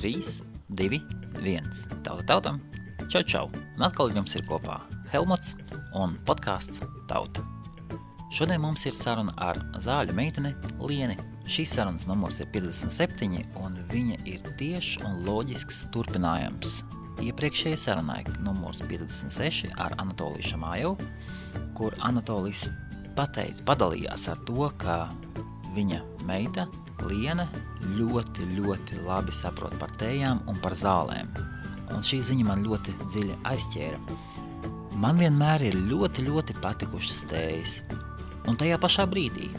3, 2, 1. Tautam. Čau. Un atkal jums ir kopā Helmuts un podcasts Tauta. Šodien mums ir saruna ar zāļu meiteni Lieni. Šīs sarunas numurs ir 57 un viņa ir tiešs un loģisks turpinājums iepriekšējai sarunai numurs 56 ar Anatoliju Šamājevu, kur Anatolijs padalījās ar to, ka viņa meita Liene ļoti labi saprot par tējām un par zālēm. Un šī ziņa man ļoti dziļi aizķēra. Man vienmēr ir ļoti patikušas tējas. Un tajā pašā brīdī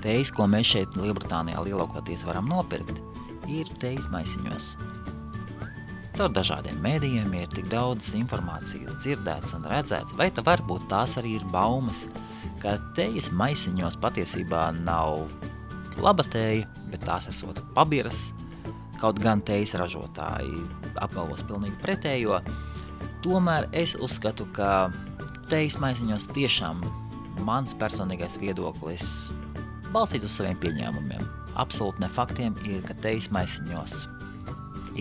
tējas, ko mēs šeit Lielbritānijā lielākoties varam nopirkt, ir tējas maisiņos. Caur dažādiem mēdījiem ir tik daudz informācijas dzirdēts un redzēts, vai varbūt tās arī ir baumas, ka tējas maisiņos patiesībā nav laba tēja, bet tās esot pabiras, kaut gan tējas ražotāji apgalvos pilnīgi pretējo. Tomēr es uzskatu, ka tējas maisiņos tiešām mans personīgais viedoklis balstīts uz saviem pieņēmumiem. Absolūti ne faktiem ir, ka tējas maisiņos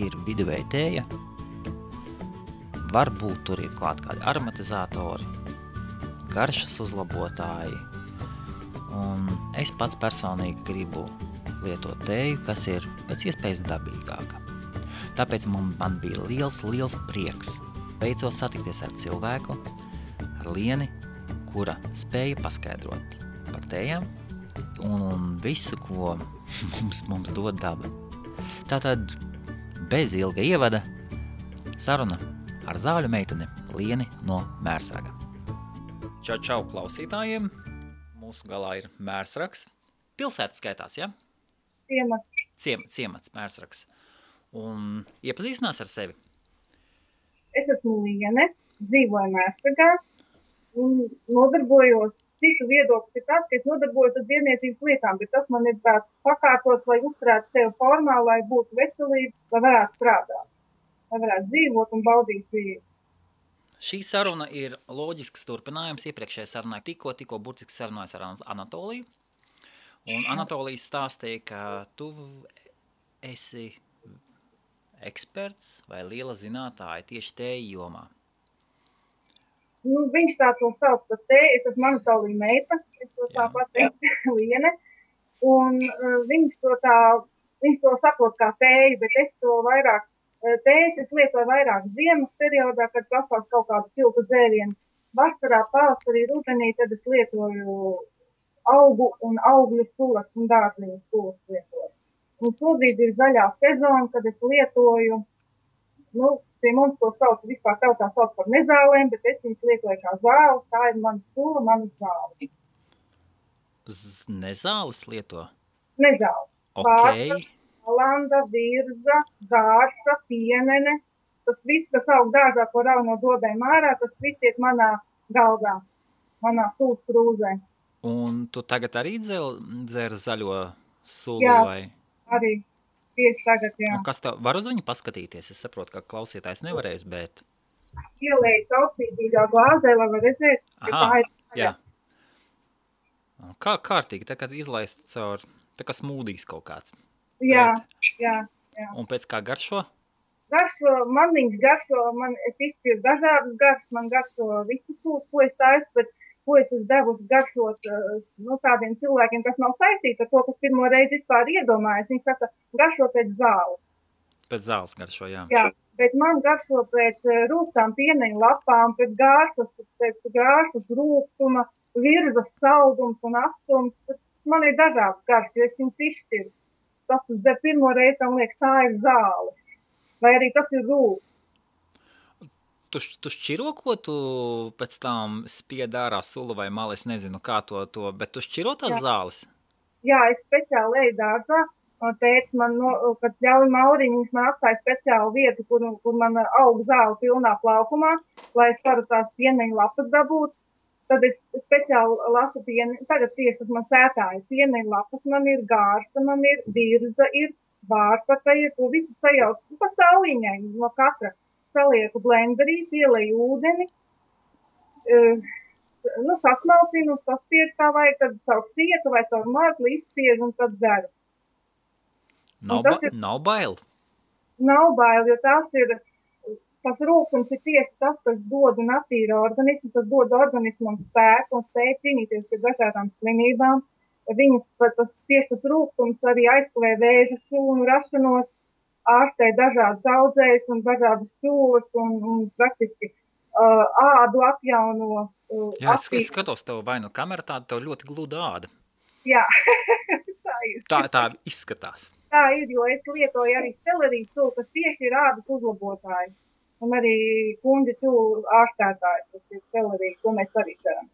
ir viduvēja tēja. Varbūt tur ir klāt kādi aromatizatori, garšas uzlabotāji. Un es pats personīgi gribu lietot tēju, kas ir pēc iespējas dabīgāka. Tāpēc man bija liels prieks beidzot satikties ar cilvēku, ar Lieni, kura spēja paskaidrot par tējām un visu, ko mums dod daba. Tātad bez ilga ievada saruna ar zāļu meiteni Lieni no Mērsraga. Čau klausītājiem! Mūsu galā ir Mērsrags. Pilsēta skaitās, ja? Ciemats, Mērsrags. Un iepazīstinās ar sevi? Es esmu Liene, dzīvoju Mērsragā un nodarbojos, citu viedoklis ir tāds, ka es nodarbojos ar dzīvniecības lietām, bet tas man ir tāds pakārtots, lai uzturētu sevi formā, lai būtu veselība, lai varētu strādāt, lai varētu dzīvot un baudīt dzīvi. Šī saruna ir loģisks turpinājums iepriekšējai sarunai. Tikko burtiski sarunājas ar Anatoliju. Un Anatolijas stāstīja, ka tu esi eksperts vai liela zinātāja tieši tēju jomā. Viņš tā to sauc par tēju. Es esmu Anatolija meita, es to tā pateikt Liene. Un viņš to saprot kā tēju, bet es to vairāk tējas es lietoju vairāk ziemas periodā, kad prasās kaut kādu siltu dzērienu. Vasarā, pavasarī, rudenī, tad es lietoju augu un augļu sulas un dārziņu sulas lietoju. Un šobrīd ir zaļā sezona, kad es lietoju, pie mums to sauc, vispār tautā sauc par nezālēm, bet es viņus lietoju kā zāli, tā ir mana sula, mana zāle. Nezāles lieto? Nezāles. Okay. Landa, virza, gārsa, pienene, tas viss, kas aug dārzā, ko rauj no dobēm ārā, tas viss iet manā galdā, manā sulas krūzē. Un tu tagad arī dzer zaļo sulu? Jā, vai? Arī tieši tagad, jā. Un kas tev var uz viņu paskatīties? Es saprotu, ka klausītājs nevarēs, bet... Ielēju caurspīdīgā glāzē, lai var redzēt, ka tā ir tagad. Jā. Kā kārtīgi, tā kā izlaist caur, tā kā smūdīs kaut kāds. Jā. Un pēc kā garšo? Man viņš garšo, es izšķiru dažādas garšas, man garšo visas sūtas, ko es taisu, bet ko es esmu devusi garšot tādiem cilvēkiem, kas nav saistīti ar to, kas pirmo reizi vispār iedomājas. Viņi saka, garšo pēc zāles. Pēc zāles garšo, jā. Jā, bet man garšo pēc rūgtām pieneņu lapām, pēc gāršas rūgtuma, virzas saldums un asums. Man ir dažādas garšas, jo es viņus izšķiru. Tas der pirmo reizi, tam liekas, tā ir zāle. Vai arī tas ir rūks. Tu šķiro, ko tu pēc tam spied ārā sulu vai malu, es nezinu, kā to, bet tu šķiro tās zāles? Jā, es speciāli eju dārzā. Tētis man, kad ļauj Mauriņu, viņš man atstāja speciālu vietu, kur man aug zāle pilnā plaukumā, lai es varu tās pieneņu lapas dabūt. Tad es speciāli lasu pieni, tagad tieši tas man sētāja pieneņu lapas, man ir gārsa, man ir virza, ir vārpaka, ir to visu sajauc, pa sauliņai no katra. Salieku blenderī, pieleju ūdeni, sasmalcinu, saspiežu kā vajag, tad caur sietu vai caur mārkli izspiežu un tad dzeru. Nav bail? nav bail, jo tas rūkums ir tieši tas, kas dod un attīra organismu, tas dod organismam spēku un spēju cīnīties pret dažādām slimībām. Tieši tas rūkums arī aizkavē vēža šūnu rašanos, ārstē dažādas audzējas un dažādas čūlas un praktiski ādu atjauno. Jā, es skatos tev vai nu kamera tāda, tev ļoti gluda āda. Jā, tā ir. Tā izskatās. Tā ir, jo es lietoju arī selerijas sulu, kas tieši ir ādas uzlabotāji. Un arī kuņģa čūlu ārstētāji, tas ir selerija, ko mēs arī darām.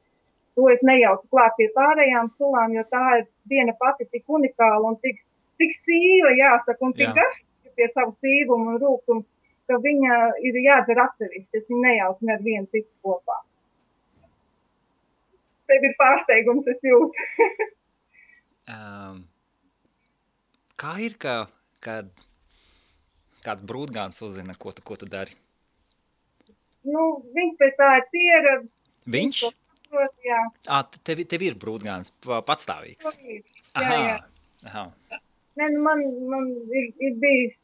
To es nejaucu klāt pie pārējām sulām, jo tā ir viena pati tik unikāla un tik sīva, jāsaka, un tik garšīga pie savu sīvumu un rūkumu, ka viņa ir jādzer atsevišķi. Es viņu nejaucu ne ar vienu citu kopā. Tev ir pārsteigums, es jūtu. Kā ir, kad kāds brūdgāns uzzina, ko tu dari? Viņš pēc tā ir pieredze. Viņš? Prot, jā. Tev ir brūdgāns patstāvīgs? Jā. Aha. Ne, man ir bijis,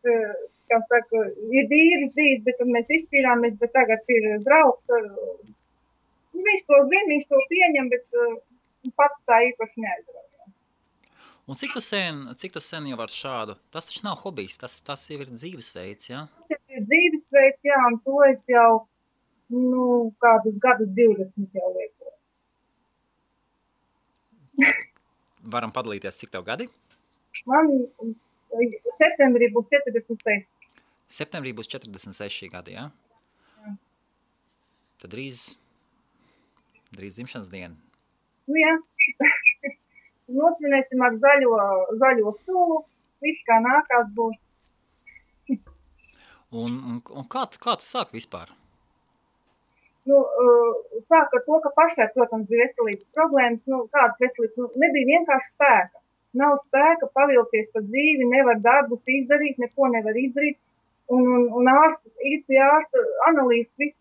kā saka, ir vīrs bijis, bet tad mēs izšķīrāmies, bet tagad ir draugs. Viņš to zina, viņš to pieņem, bet pats tā īpaši neaizrauj. Un cik tu sen jau ar šādu? Tas taču nav hobijs, tas jau ir dzīvesveids, jā? Tas ir dzīvesveids, jā, un to es jau, kādus gadus 20 jau lietoju. Varam padalīties, cik tev gadi? Man septembrī būs 46. Septembrī būs 46 gadi, jā? Jā. Tad drīz dzimšanas diena. Jā. Nosvinēsim ar zaļo sulu, viss kā nākās būs. Un kā tu sāki vispār? Sāk ar to, ka pašai, protams, bija veselības problēmas, kādas veselības, nebija vienkārši spēka. Nav spēka pavilties pa dzīvi, nevar darbus izdarīt, neko nevar izdarīt. Un īsti ārsta analīzes, viss,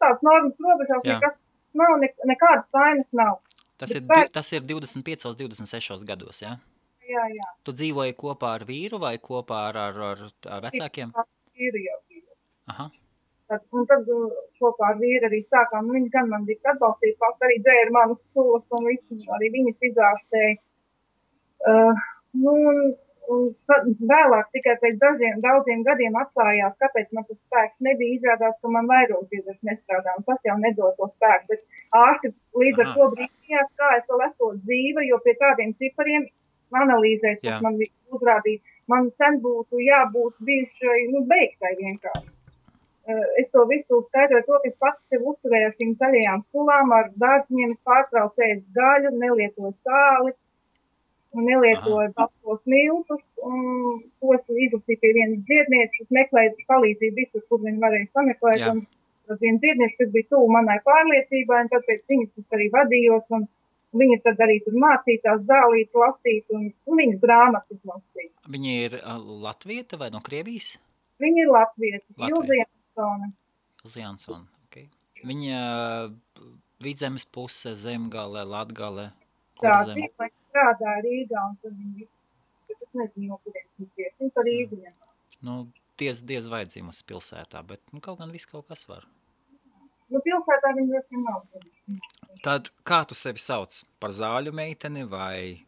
tāds normas robežās, nekas nav, nekādas vainas nav. Tas ir 25, 26 gados, jā? Jā. Tu dzīvoji kopā ar vīru vai kopā ar vecākiem? Vīru jau bija. Aha. Un tad kopā ar vīru arī sākām. Viņš gan man bija atbalstīt, pats arī dzēra manas sulas un visu, arī viņas izārstēja. Un vēlāk tikai pēc daudziem gadiem atklājās, kāpēc man tas spēks nebija. Izrādās, ka man vairogdziedrs nestrādā, un tas jau nedod to spēku. Bet ārsti līdz ar to brīnījās, kā es vēl esot dzīva, jo pie kādiem cipariem analīzēs, kas man uzrādīja, man sen būtu jābūt bijušai beigtai vienkārši. Es to visu skaidroju to, ka es pats sev uzturēju ar šīm zaļajām sulām, ar dārziņiem, es pārtraucu ēst gaļu, nelietoju sāli. Un nelietoju baltos miltus, un to es izlasīju pie vienas dziednieces, es meklēju palīdzību visur, kur viņi varēja sameklēt, un tas viena dziedniece, kas bija tuvu manai pārliecībai, un tāpēc viņas arī vadījos, un viņa tad arī tur mācītās zālīt, lasīt, un viņas grāmatas lasīt. Viņa ir latvieta vai no Krievijas? Viņa ir latvieta, Ilze Jansone. Ilze Jansone, ok. Viņa Vidzemes puse, Zemgale, Latgale, kur zem? Strādā Rīgā, un tad viņi es nezinu, no kuriem viņi ir. Viņi par Rīgu. Diez vai dzīvusi pilsētā, bet kaut gan viss kaut kas var. Pilsētā viņi ļoti nav. Tad kā tu sevi sauc? Par zāļu meiteni vai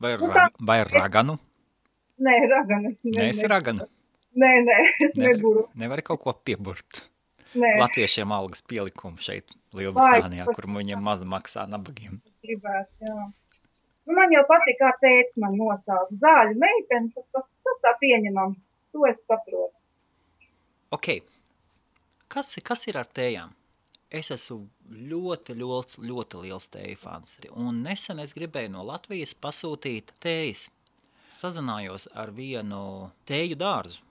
raganu? Nē, raganu. Nē, esi raganu? Nē, es neburu. Nevari kaut ko pieburt? Nē. Latviešiem algas pielikumu šeit Lielbritānijā, kur viņiem maz maksā nabagiem. Es gribētu, jā. Man jau patīk, kā tētis man nosauc. Zāļu meiteni, tas tā pieņemam. To es saprotu. Ok. Kas ir ar tējām? Es esmu ļoti liels tēju fans. Un nesen es gribēju no Latvijas pasūtīt tējas. Sazinājos ar vienu tēju dārzu.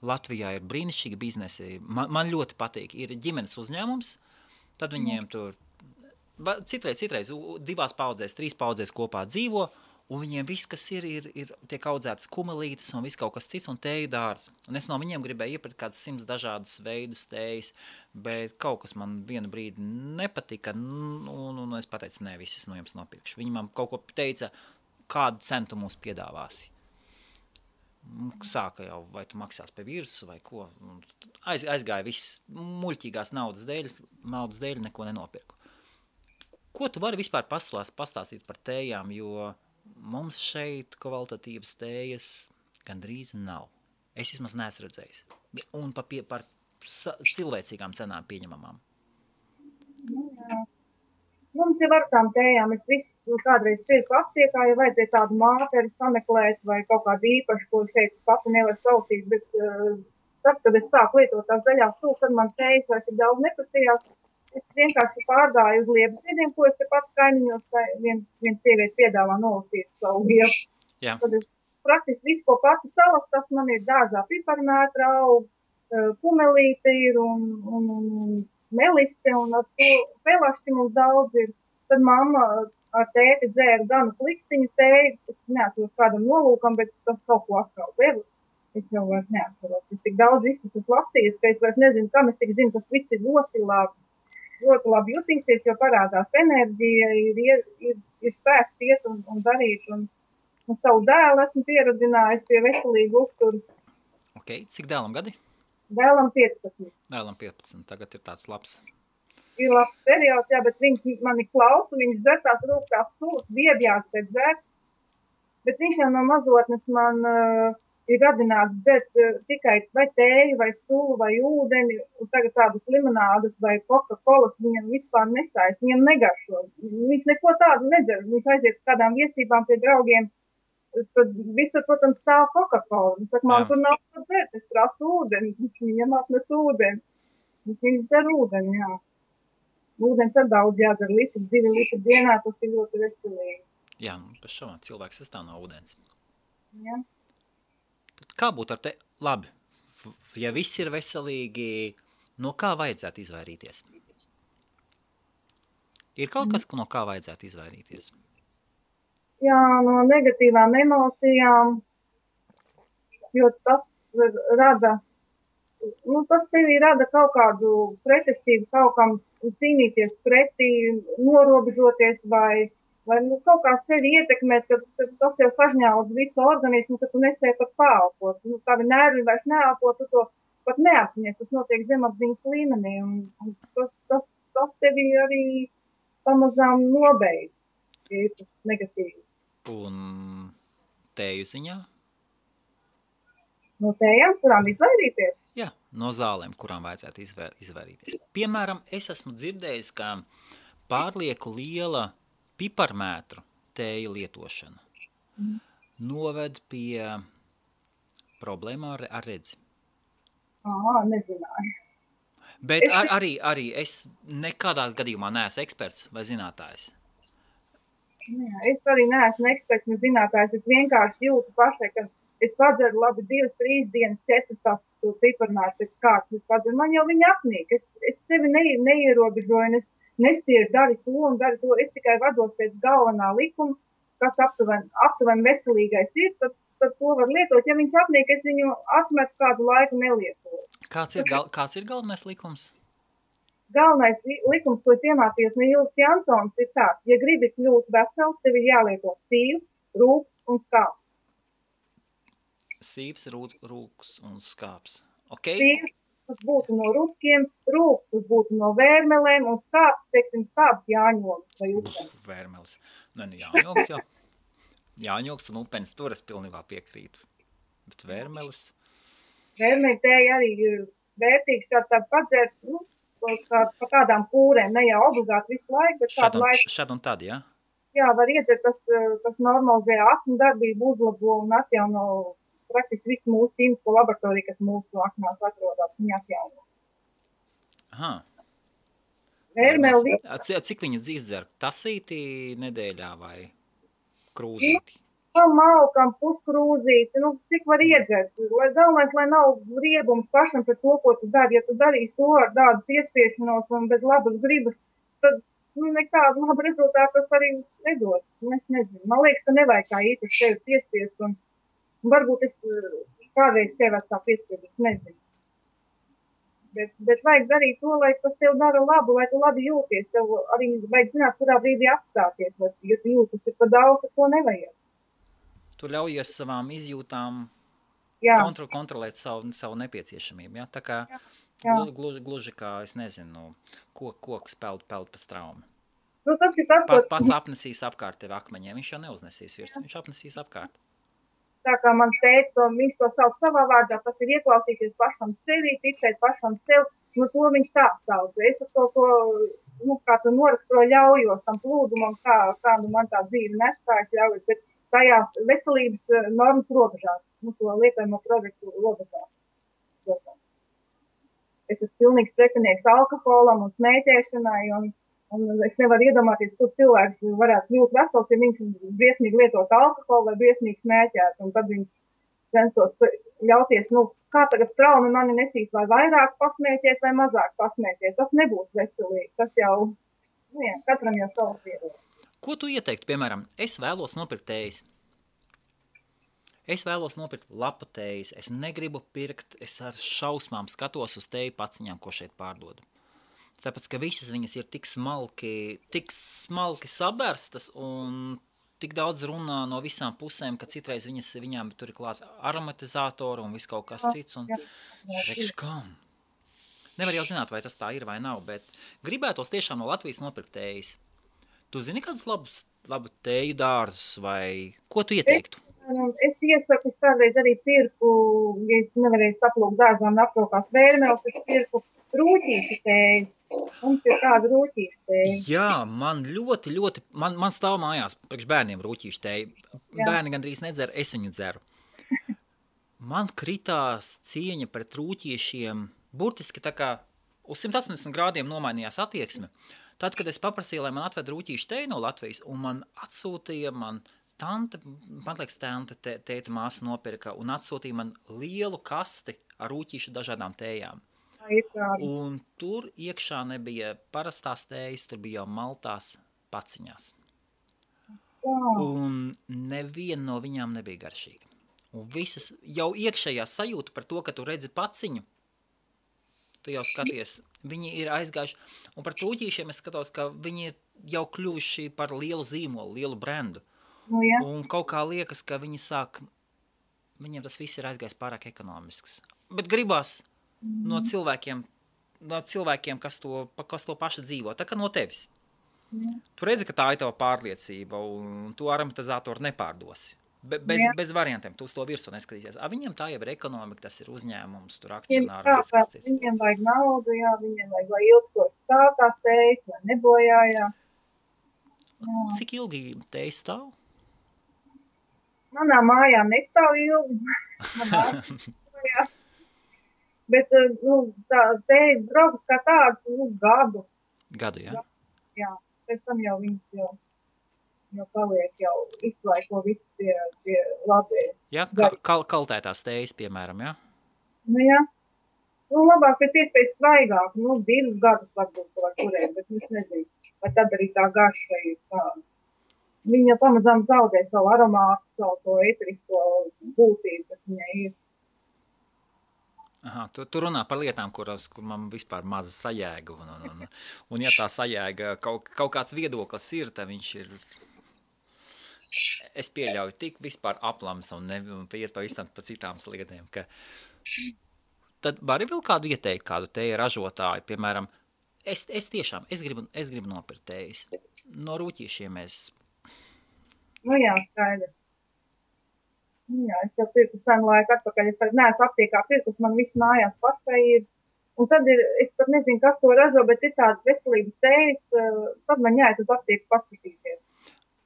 Latvijā ir brīnišķīgi biznesi. Man ļoti patīk. Ir ģimenes uzņēmums, tad viņiem tur citreiz 2 paudzēs, 3 paudzēs kopā dzīvo, un viņiem viss, kas ir tiek audzētas kumelītes un viss kaut kas cits un tēju dārz. Un es no viņiem gribēju iepirkt kāds 100 dažādus veidus tējas, bet kaut kas man vienu brīdi nepatika, un es pateicu, nē, viss es no jums nopirkšu. Viņi man kaut ko teica, kādu cenu tu mums piedāvāsi. sāka jau, vai tu maksās pie virsu vai ko. Aizgāja viss muļķīgās naudas dēļ neko nenopirku. Ko tu vari vispār pastāstīt par tējām, jo mums šeit kvalitatīvas tējas gandrīz nav. Es vismaz neesmu redzējis. Un par cilvēcīgām cenām pieņemamām. Jā. Mums jau ar tām tējām, es visu kādreiz pirku aptiekā, ja vajadzēja tādu māteri sameklēt vai kaut kādu īpašu, ko šeit pati nevar sautīt, bet tad, kad es sāku lietot tās zaļās sūs, tad man tējas vairs tik daudz neprasījās. Es vienkārši pārgāju uz Liepziediem, ko es te pat kaimiņos, viena sieviete piedāvā nolasīt savu vietu. Jā. Tad es praktiski visu, ko pati salas, tas man ir dārzā piparmētra aug, pumelīte ir un melise, un ar to pelašķi mums daudz ir. Tad mamma ar tēti dzēra ganu klikstiņu tēju, es neatceros kādam nolūkam, bet tas kaut ko atkal devu. Es jau vairs neatceros. Es tik daudz visu tas lasījis, ka es vairs nezinu, kam es tik zinu, tas viss ir ļoti labi jutīsies, jo parādās enerģija, ir spēks iet un darīt, un savu dēlu esmu pieradinājis pie veselīgu uzturu. Ok, cik dēlam gadi? Dēlam 15. Dēlam 15, tagad ir tāds labs. Ir labs periods, jā, bet viņš mani klausa, viņš dzer tās rūktās sulas, biebjās pēc dzert, bet viņš jau no mazotnes man ir radināts dzert tikai vai tēju, vai sulu, vai ūdeni, un tagad tādas limonādas vai Coca-Colas viņam vispār nesaist, viņam negaršo. Viņš neko tādu nedzer, viņš aiziet uz kādām viesībām pie draugiem, tad visur, protams, stāv Coca-Cola. Viņš saka, man tur nav ko dzert, es prasu ūdeni, viņam atnes ūdeni. Viņš dzer ūdeni, jā. Ūdens ar daudz jādzer, 2 litri dienā, tas ir ļoti veselīgi. Jā, pēc šovā cilvēks sastāv no ūdens. Jā. Tad kā būtu ar te? Labi, ja viss ir veselīgi, no kā vajadzētu izvairīties? Ir kaut kas, no kā vajadzētu izvairīties? Jā, no negatīvām emocijām, jo tas rada, tas tevī rada kaut kādu pretestību, kaut kam cīnīties pretī, norobežoties vai kaut kā sevi ietekmēt, kad tas jau sažņaudz visu organismu, ka tu nespēj pat pāelpot. Tavi nervi vairs neelpo, tu to pat neapziņies, tas notiek zemapziņas līmenī, un tas tevi arī pamazām nobeidz. Ir tas negatīvs. Un tēju ziņā? No tējām, kurām izvairīties? Jā, no zālēm, kurām vajadzētu izvairīties. Piemēram, es esmu dzirdējis, ka pārlieku liela piparmētru tēju lietošana noved pie problēmām ar redzi. Nezināju. Bet arī es nekādā gadījumā neesmu eksperts vai zinātājs. Jā, es arī neesmu eksperts, ne zinātājs. Es vienkārši jūtu pašai, ka es padzeru labi 2-3 dienas, 4 to piparmētru pēc kārtas. Es padzeru, man jau viņa apnīk. Es sevi neierobežoju, nespiežu dari to un dari to. Es tikai vados pēc galvenā likuma, kas aptuveni veselīgais ir, tad to var lietot. Ja viņš apnīk, es viņu atmetu kādu laiku nelietoju. Kāds ir galvenais likums? Galvenais likums, ko es iemācījos no Jūlas Jansons, ir tāds, ja gribi kļūt vesels, tev ir jālieto sīvs, rūks un skāps. Sīvs, rūks un skāps. Okay. Sīvs, tas būtu no rūkiem, rūks, tas būtu no vērmelēm, un skāps, teiksim, skāps jāņogs vai upenis. Vērmelis. Jāņogs jau. Jāņogs un upenis, tur es pilnībā piekrītu. Bet vērmelis? Vērmeli tēja arī ir vērtīgs, tādu padzērt, par kādām kūrēm, ne jau obligāti visu laiku, bet kādu laiku. Šad un tad, jā? Jā, var iedzert, tas normalizē aknu darbību, uzlabo un atjauno praktiski visu mūsu ķīmisko laboratoriju, kas mūsu aknās atrodas, viņa atjauno. Aha. Vērmeli. Cik viņu izdzer? Tasīti nedēļā vai krūzīti? Malkam, puskrūzīti, cik var iedzert. Galvenais, lai nav riebums pašam par to, ko tu dari. Ja tu darīsi to ar tādu piespiešanos un bez labas gribas, tad nekādu labu rezultātu tas arī nedos. Es nezinu. Man liekas, ka nevajag kā īpaši sevi piespiest. Un varbūt es kādreiz sevi tā piespiedīšu, nezinu. Bet vajag darīt to, lai tas tev dara labu, lai tu labi jūties. Tev arī vajag zināt, kurā brīdī apstāties. Ja tu jūtas ir pa daudz, tad to nevajag. Tu ļaujies savām izjūtām kontrolēt savu nepieciešamību, ja? Tā kā jā. gluži kā, es nezinu, koks peld pa straumi. Nu, tas ir tas, Pats apnesīs apkārt tevi akmeņiem, viņš jau neuznesīs virs, viņš apnesīs apkārt. Tā kā man teica, viņš to sauc savā vārdā, tas ir ieklausīties pašam sevi, ticēt pašam sev, nu to viņš tā sauc. Es ar to, nu, kā tu noraksturo, ļaujos tam plūdumam, kā nu man tā dzīve nestājas ļaujos, bet tajās veselības normas robežās, nu to lietojamo produktu robežās. Es esmu pilnīgs pretinieks alkoholam un smēķēšanai, un es nevaru iedomāties, kur cilvēks varētu kļūt vesels, ja viņš briesmīgi lietot alkoholu vai briesmīgi smēķēt, un tad viņš censos ļauties, nu, kā tagad straumi mani nesīs, vai vairāk pasmēķēt vai mazāk pasmēķēt. Tas nebūs veselīgi, tas jau, nu jā, katram jau savs viedoklis. Ko tu ieteiktu, piemēram, es vēlos nopirkt tējas? Es vēlos nopirkt lapu tējas, es negribu pirkt, es ar šausmām skatos uz tēju paciņām, ko šeit pārdod. Tāpēc, ka visas viņas ir tik smalki sabērstas un tik daudz runā no visām pusēm, ka citreiz viņām tur ir klāts aromatizātori un viss kaut kas cits. Un rekš, kam? Nevar jau zināt, vai tas tā ir vai nav, bet gribētos tiešām no Latvijas nopirkt tējas. Tu zini kādus labu tēju dārzus vai ko tu ieteiktu? Es iesaku, es kādreiz arī pirku, ja es nevarēju saplūkt dārzā un aprokās vērmēles, es pirku rūķīšu tējas. Mums ir tāda rūķīšu tēja. Jā, man ļoti, man stāv mājās priekš bērniem rūķīšu tēja. Bērni gandrīz nedzer, es viņu dzeru. Man kritās cieņa pret rūķiešiem, burtiski tā kā uz 180 grādiem nomainījās attieksme. Tad, kad es paprasīju, lai man atved rūķīšu tēju no Latvijas, un man atsūtīja tēta māsa nopirka un atsūtīja man lielu kasti ar rūķīšu dažādām tējām. Un tur iekšā nebija parastās tējas, tur bija jau maltās paciņās. Un neviena no viņām nebija garšīga. Un visas jau iekšējā sajūta par to, ka tu redzi paciņu, tu jau skaties, viņi ir aizgājuši. Un par rūķīšiem es skatos, ka viņi ir jau kļuvuši par lielu zīmolu, lielu brendu. Nu, ja. Un kaut kā liekas, ka viņiem tas viss ir aizgājis pārāk ekonomisks. Bet gribās no cilvēkiem, kas to paši dzīvo, tā kā no tevis. Tu redzi, ka tā ir tava pārliecība, un tu aromatizātoru nepārdosi. Bez variantiem, tu uz to virsmu neskatīsies. Viņiem tā jau ir ekonomika, tas ir uzņēmums, tur akcionāri. Viņiem vajag naudu, jā, viņiem vajag, lai ilgstoši stāv tās tējas, lai nebojājās. Cik ilgi tējas stāv? Manā mājā nestāv ilgi. Bet, nu, tā tējas draugas kā tāds, nu, gadu. Gadu, jā? Jā, pēc tam jau viņas jau paliek, jau izlaiko visu pie labējas. Jā, kaltētās tējas, piemēram, jā? Nu, jā. Nu, labāk pēc iespējas svaigāk, nu, 2 gadus varbūt var turēt, bet es nezinu, vai tad arī tā garša ir tāda. Viņa pamazām zaudē savu aromātu, savu to eterisko būtību, kas viņai ir. Aha, tu runā par lietām, kur man vispār maza sajēga, un ja tā sajēga kaut kāds viedoklis ir, tad viņš ir, es pieļauju tik vispār aplams un iet pavisam pa citām sliedēm, ka tad vari vēl kādu ieteikt, kādu tēju ražotāju, piemēram, es gribu nopirkt tējas. No rūķīšiem Nu jā, skaidrs. Jā, es jau pirku senu laiku atpakaļ, es tagad neesmu aptiekā pirkus, man viss mājās pašai ir. Un tad es pat nezinu, kas to ražo, bet ir tādas veselības tējas, tad man jāiet uz aptieku paskatīties.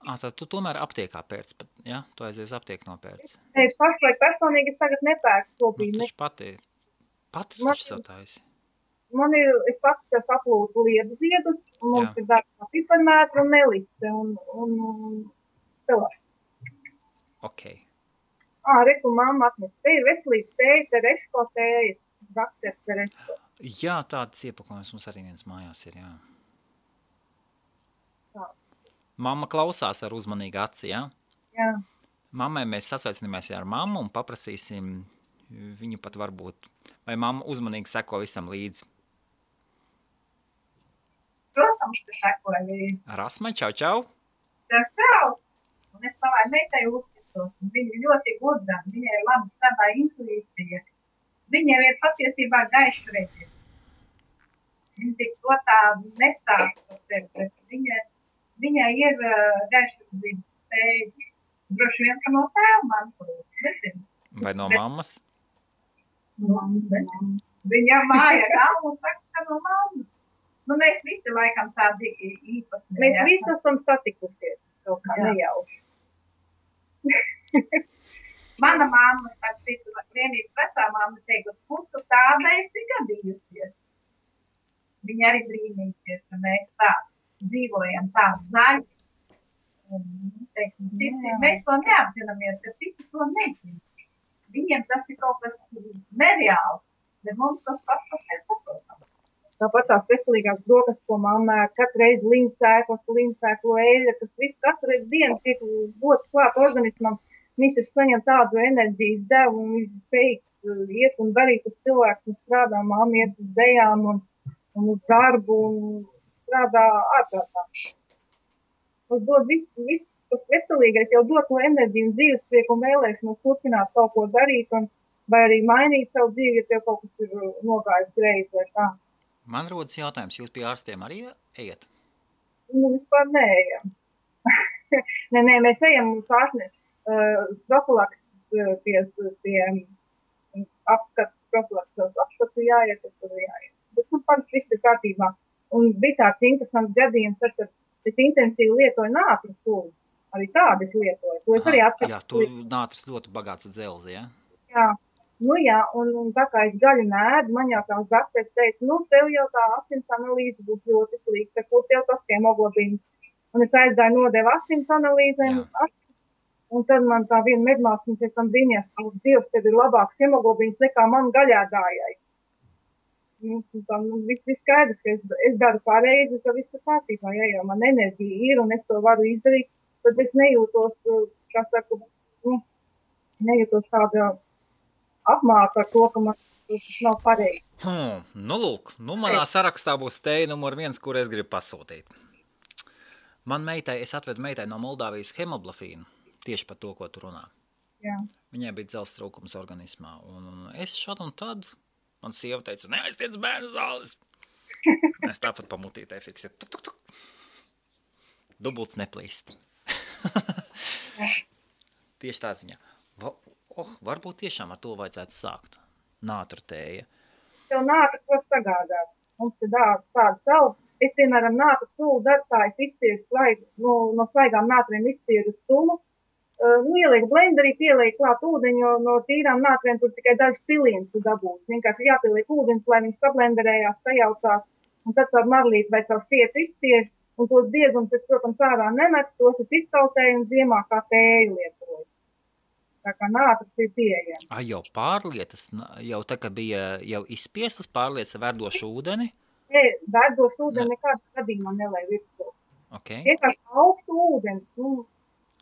Tad tu tomēr aptiekā pērc, ja? Tu aizies aptieku nopērc. Nē, pašlaik personīgi es tagad nepērku šobrīd. Nu, pati tu taču satājies. Es pats saplūdu liedu ziedus, un mums ir dārgā piparmētra un meliste, un telas. Ok. Reku mamma atnes. Te ir veselības tēja, tereško tēja, dakter tereško. Jā, tādas iepakojums mums arī viens mājās ir, jā. Tā. Mamma klausās ar uzmanīgu aci, jā? Jā. Mammai mēs sasveicināmies ar mammu un paprasīsim viņu pat varbūt, vai mamma uzmanīgi seko visam līdzi. Protams, ka sekoja līdzi. Rasmai, čau! Čau! Un es savai meitai uzskatu. jūtos. Viņa ļoti gudra, viņai ir laba strādā intuīcija. Viņa ir patiesībā gaišredzi. Viņa tik to tā nestāsta par sevi, bet viņai ir gaišredzības spējas. Droši vien, ka no tēva mantojums. Vai no mammas? No mammas, nezinu. Viņa māja galvu saka, ka no mammas. Nu, mēs visi laikam tādi īpatni. Mēs visi esam satikusies, kaut kā nejauši. Mana mamma, starp citu, vienīgs vecā mamma teica, kur tu tāda esi gadījusies. Viņa arī brīnīsies, ka mēs tā dzīvojam tā zaļi. Teiksim, mēs to neapzināmies, ka citi to nezina. Viņiem tas ir kaut kas nereāls, bet mums tas pats par sevi saprotam. Tāpat tās veselīgās brokas, ko mamma katru reizi līmsēklu eļļa, kas viss katru dienu tiek dots klāt organismam, viņš saņem tādu enerģijas devu un viņš spējīgs iet un darīt uz cilvēks un strādā, mamma iet uz dejām un uz darbu un strādā ārprātā. Tas dod viss, tas veselīgais jau dod to enerģiju un dzīvesprieku un vēlēšanos turpināt kaut ko darīt un vai arī mainīt savu dzīvi, ja tev kaut kas ir nogājis greizi vai tā. Man rodas jautājums, jūs pie ārstiem arī ejat? Nu, vispār neejam. Nē, mēs ejam un pārsniedz profilaks pie apskatu jāiet, tur jāiet. Bet nu, parasti viss ir kārtībā. Un bija tāds interesants gadījums, tad, kad es intensīvi lietoju nātru sulu. Arī tādu es lietoju. To es arī Jā, tur nātras ļoti bagāts ar dzelzi, ja? Jā. Nu jā, un tā kā es gaļu nēdu, man jau tās dakteris teica, nu tev jau tā asins analīze būs ļoti slikta, kur tev tas hemoglobīns. Un es aizgāju nodevu asins analīzēm, un tad man tā viena medmāsina pēc tam brīnījās, ka Dievs, tev ir labāks hemoglobīns nekā man gaļādājai. Viss skaidrs, ka es daru pareizi, ka viss ir kārtībā, ja jau man enerģija ir un es to varu izdarīt, tad es nejūtos, kā saku, nejūtos tāda apmāka ar to, ka man tas nav pareizi. Nu lūk, manā sarakstā būs teja numur 1, kur es gribu pasūtīt. Es atvedu meitai no Moldāvijas hemoglofīnu, tieši par to, ko tu runā. Jā. Viņai bija dzelzs trūkums organismā, un es šad un tad, man sieva teica, neaiztiec bērnu zāles. Es tāpat pamutītē fiksēt. Tuk, tuk, tuk. Dubults neplīst. Tieši tā ziņā. Varbūt tiešām ar to vajadzētu sākt. Nātru tēja. Tev nātras var sagādāt. Mums ir tāda savu. Es, piemēram, nātru sulu darbtājs izspiedu no svaigām nātriem izspiedu sulu. Ielieku blenderī, pielieku klāt ūdeņu, no tīrām nātriem tur tikai dažs pilienis tu dabūs. Vienkārši jāpieliek ūdens, lai viņš sablenderējās, sajaucās. Un tad tādu marlīti vai tavu sietu izspiež. Un tos biezums es, protams, ārā nemetu, tos es iztautēju un ziemā kā tēju lietoju. Tā kā nātras ir pieejama. Jau pārlietas, jau tā, ka bija jau izspiestas pārlietas verdošu ūdeni? Nē, verdošu ūdeni nekādā gadījumā nelēja virsū. Okay. Vienkārši augstu ūdeni,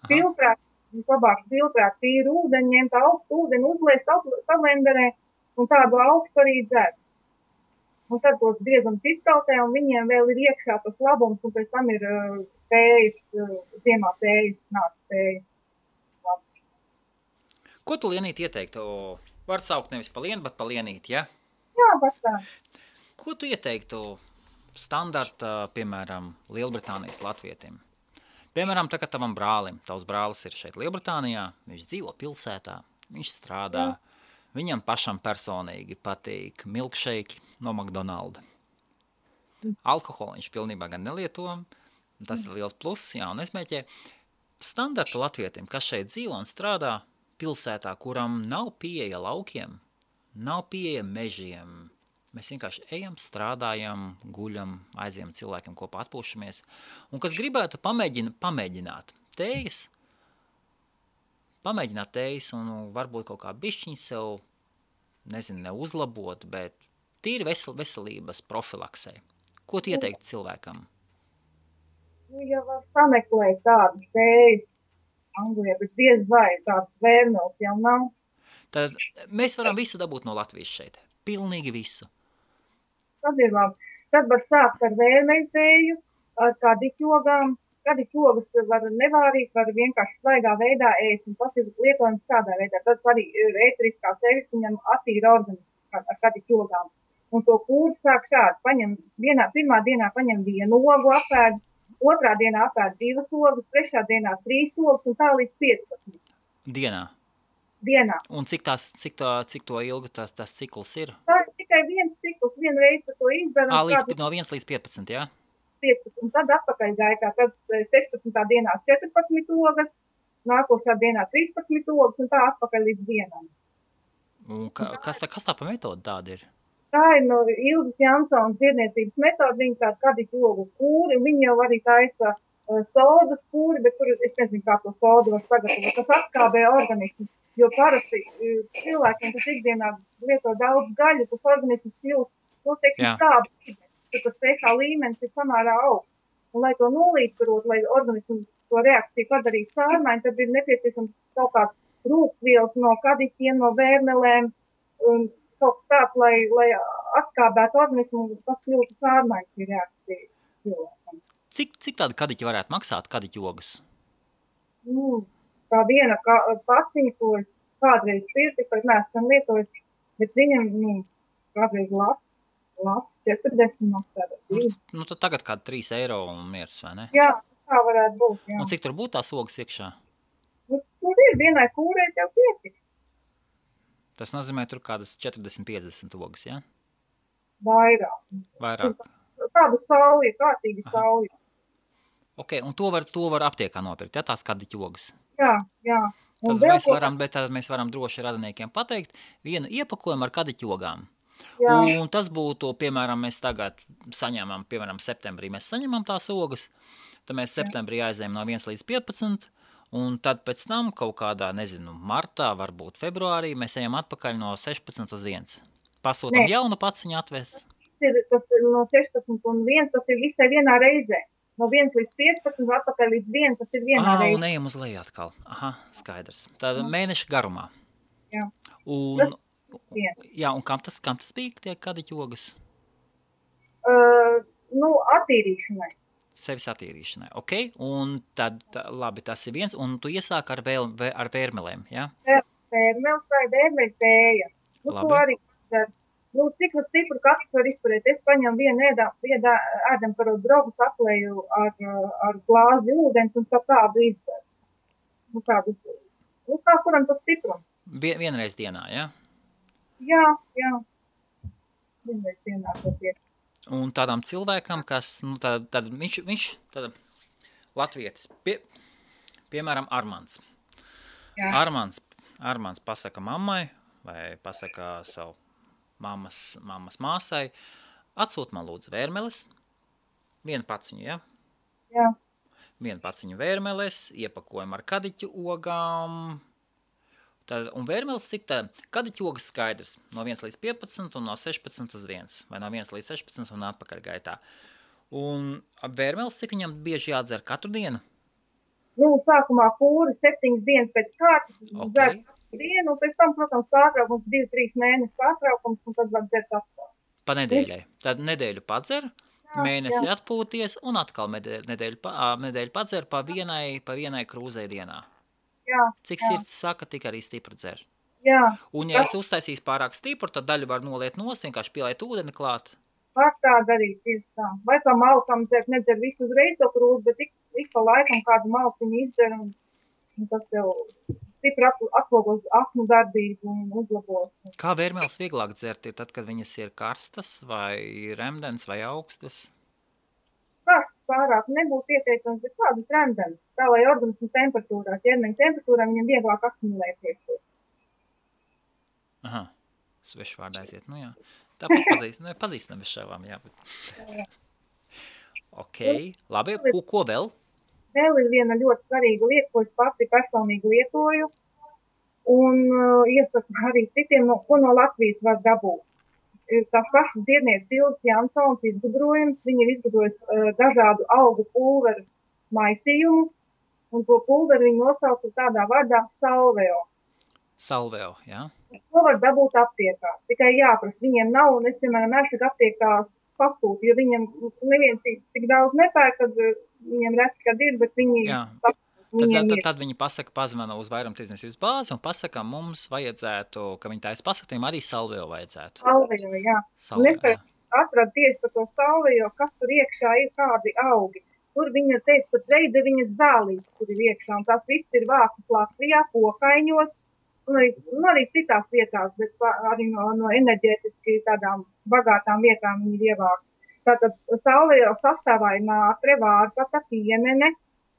filtrēt, vislabāk filtrēt tīru ūdeni, ņemt augstu ūdeni, uzliest sablenderē un tādu augstu arī dzert. Un tad tos biezums iztautē un viņiem vēl ir iekšā tas labums un pēc tam ir tējas, ziemā tējas, nātras tējas. Ko tu, Lienīt, ieteiktu? Var saukt nevis pa lienu, bet pa Lienīt, ja? Jā, tā. Ko tu ieteiktu standarta, piemēram, Lielbritānijas latvietim? Piemēram, tagad tavam brālim. Tavs brālis ir šeit Lielbritānijā, viņš dzīvo pilsētā, viņš strādā. Viņam pašam personīgi patīk milkshake no McDonalda. Alkoholu viņš pilnībā gan nelieto, tas ir liels pluss, jā, un es mēķēju standarta latvietim, kas šeit dzīvo un strādā pilsētā, kuram nav pieeja laukiem, nav pieeja mežiem. Mēs vienkārši ejam, strādājam, guļam, aizjam cilvēkiem kopā atpūšamies. Un kas gribētu pamēģināt tējas un varbūt kaut kā bišķiņ sev, nezinu, neuzlabot, bet tīri veselības profilaksē. Ko tu ieteiktu cilvēkam? Ja var sameklēt tādas tējas, Anglijā, bet diez vai tāds vērmels jau nav. Tad mēs varam visu dabūt no Latvijas šeit. Pilnīgi visu. Tad ir labi. Tad var sākt ar vērmeļtēju, ar kā diķogām, kadiķu ogas var nevārīt, var vienkārši svaigā veidā ēst, un tas ir lietojams tādā veidā. Tad arī ēteriskās eļļas viņam attīra organismu ar kadiķu ogām. Un to kūru sāk šādi, pirmā dienā paņem 1 ogu apēd, otrā dienā apēd 2 ogas, trešā dienā 3 ogas un tā līdz 15. Dienā. Un cik to ilgu tas cikls ir? Tā ir tikai viens cikls, vienreiz par to izdara. No 1 līdz 15, jā? 15, un tad atpakaļ gaitā, tad 16. dienā 14 ogas, nākošā dienā 13 ogas un tā atpakaļ līdz dienam. Un kas tā pa metodu tāda ir? Tā ir no Ilzes Jansons dziedniecības metoda, viņa tāda kadiķu ogu kūri, viņa jau arī taisa sodas kūri, bet tur es nezinu, kā to sodu var sagatavot. Tas atskābē organismus, jo parasti cilvēkiem, kas ikdienā lieto daudz gaļu, tas organisms kļūst, skābi, tad tas pH līmenis ir samērā augsts. Un, lai to nolīdzsvarot, lai organismu to reakciju padarītu pārmaiņu, tad ir nepieciešams kaut kāds rūkvielas no kadiķiem, no vērmelēm, un kaut kas tāds, lai atskābētu organismu, un tas kļūtu pārmaiņas ir reakcija cilvēkam. Cik tāda kadiķi varētu maksāt, kadiķu ogas? Tā viena paciņa, ko es kādreiz pirti, pat neesam lietojis, bet viņam kādreiz labs 40 maksāt. Tad tagad kāda 3 eiro un miers, vai ne? Jā, tā varētu būt, jā. Un cik tur būtu tās ogas iekšā? Tur ir vienai kūrei tev pietiks. Tas nozīmē tur kādas 40-50 ogas, jā? Vairāk. Tādu sauju, kārtīgi sauju. Ok, un to var aptiekā nopirkt, ja tās kadiķu ogas? Jā. Tad mēs varam droši radiniekiem pateikt vienu iepakojumu ar kadiķu ogām. Jā. Un tas būtu, piemēram, mēs tagad saņemam, piemēram, septembrī mēs saņemam tās ogas, tad mēs septembrī aizējam no 1 līdz 15, un tad pēc tam kaut kādā, martā, varbūt februārī, mēs ejam atpakaļ no 16 uz 1. Pasūtam jaunu paciņu atvēst. Tas ir no 16 un 1, tas ir visai vienā reizē. No 1 līdz 15, atpakaļ līdz 1, tas ir vienā reizē. Un ejam uz leju atkal. Aha, skaidrs. Tad mēneša garumā. Jā. Un kam tas bija, tie kadiķu ogas? Attīrīšanai. Sevis attīrīšanai, ok? Un tad, labi, tas ir viens, un tu iesāk ar vērmelēm, jā? Vērmeles vai vērmeļu tēja. To arī dara. Cik stipru katrs var izturēt? Es paņemu vienu ēdam par drogu saplēju ar glāzi ūdens un tādu izdaru. Kā kuram tas stiprums? Vienreiz dienā, jā? Jā. Vienreiz dienā to pietiek. Un tādām cilvēkam, kas, viņš latvietis, piemēram, Armands. Jā. Armands pasaka mammai vai pasaka savu mammas māsai, atsūt man lūdzu vērmeles, 1 paciņu, ja? Jā. 1 paciņu vērmeles, iepakojam ar kadiķu ogām, un vērmeles cik tā, kadiķu ogas skaidrs, no 1 līdz 15 un no 16 uz 1, vai no 1 līdz 16 un atpakaļ gaitā. Un vērmeles cik viņam bieži jādzer katru dienu? Sākumā kūri 7 dienas pēc kārtas, dzer katru dienu, un pēc tam, protams, pārtraukums 2-3 mēnešu pārtraukums, un tad var dzert atkal. Pa nedēļai. Tad nedēļu padzer, mēnesi atpūties, un atkal nedēļu padzer pa vienai krūzei dienā. Jā. Cik sirds saka, tik arī stipru dzer. Jā. Un ja es uztaisīs pārāk stipru, tad daļu var noliet nost, vienkārši pielēt ūdeni klāt. Var tā darīt, tieši tā. Vai kā malkam nedzer visu uzreiz to krūzi, bet ik pa laikam kādu malciņu izdzer, un tas tev stipri atlogos aknu darbību un uzlabos. Kā vērmeles vieglāk dzert ir tad, kad viņas ir karstas vai remdens vai augstas? Karstas pārāk nebūtu ieteicams, bet kādas remdens, tā lai organismu temperatūrā, ķermeņa temperatūrā viņam vieglāk asimilēties. Aha, svešvārdā aiziet, jā. Tāpat pazīstam bez šāvām, jā. Ok, labi, ko vēl? Vēl ir viena ļoti svarīga lieta, ko es pati personīgi lietoju, un iesaku arī citiem, ko no Latvijas var dabūt. Tās pašas dziednieces Ilzes Jansons izgudrojums, viņa ir izgudrojis dažādu augu pulveru maisījumu, un to pulveru viņa nosauca tādā vārdā salveo. Salveo, jā? To var dabūt aptiekā. Tikai jāprasa, viņiem nav, un es, piemēram, esmu aptiekās pasūtu, jo viņiem neviens tik daudz nepērk, kad viņiem reti, kad ir, bet viņi Tad viņi pasaka, pazvana uz vairumtirdzniecības bāzi un pasaka, mums vajadzētu, ka viņi taisa pasaktījumu, arī salvio vajadzētu. Salvio, jā. Un es atradu tieši par to salvio, kas tur iekšā ir, kādi augi. Tur viņa teica, pat veideviņas zālītes tur ir iekšā, un tās viss ir vākas Latvijā, Kokaiņos, un arī citās vietās, bet arī no enerģētiski tādām bagātām vietām viņi ir ievākti. Tātad salvio sastāvā ir nātre, vārpata,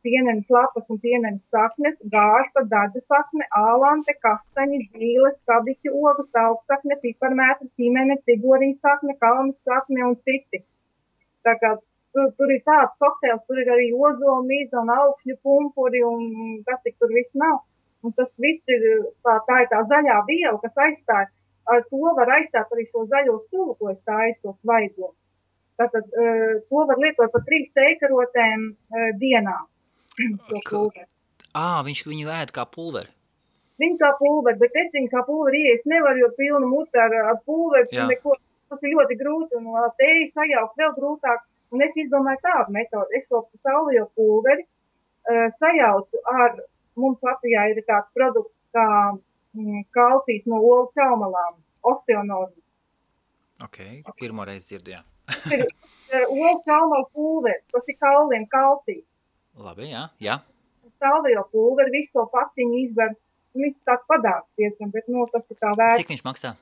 pienenes lapas un pienenes saknes, gārsta, daļu sakne, ālante, kastaņi, zīles, kabiķu ogu, tauksakne, piparmētra, ķimene, tigorī sakne, kalnas sakne un citi. Tā kā tur ir tāds kokteils, tur ir arī ozola, mīza un augšņu pumpuri un kas tik tur viss nav. Un tas viss ir, tā ir tā zaļā viela, kas aizstāja. Ar to var aizstāt arī šo zaļo sulu, ko es tāju, to svaigo. Tātad to var lietot par 3 teikarotēm dienā. Viņš viņu ēd kā pulveri. Viņu kā pulveri, bet es viņu kā pulveri iees nevaru, jo pilnu muti ar pulveri, neko, tas ir ļoti grūti, un tēju sajaukt vēl grūtāk, un es izdomāju tādu metodu. Es šo salvio pulveri sajaucu ar, mums Latvijā ir tāds produkts kā kalcijs no olu caumalām, osteonormu. Ok, pirmoreiz dzirdu, jā. Ir olu caumalu pulveri, tas ir kauliem kalcijs. Labi, jā. Salvio pulveri, visu to paciņu izver, viņš tāds padāks diezgan, bet, tas ir tā vērts. Cik viņš maksā?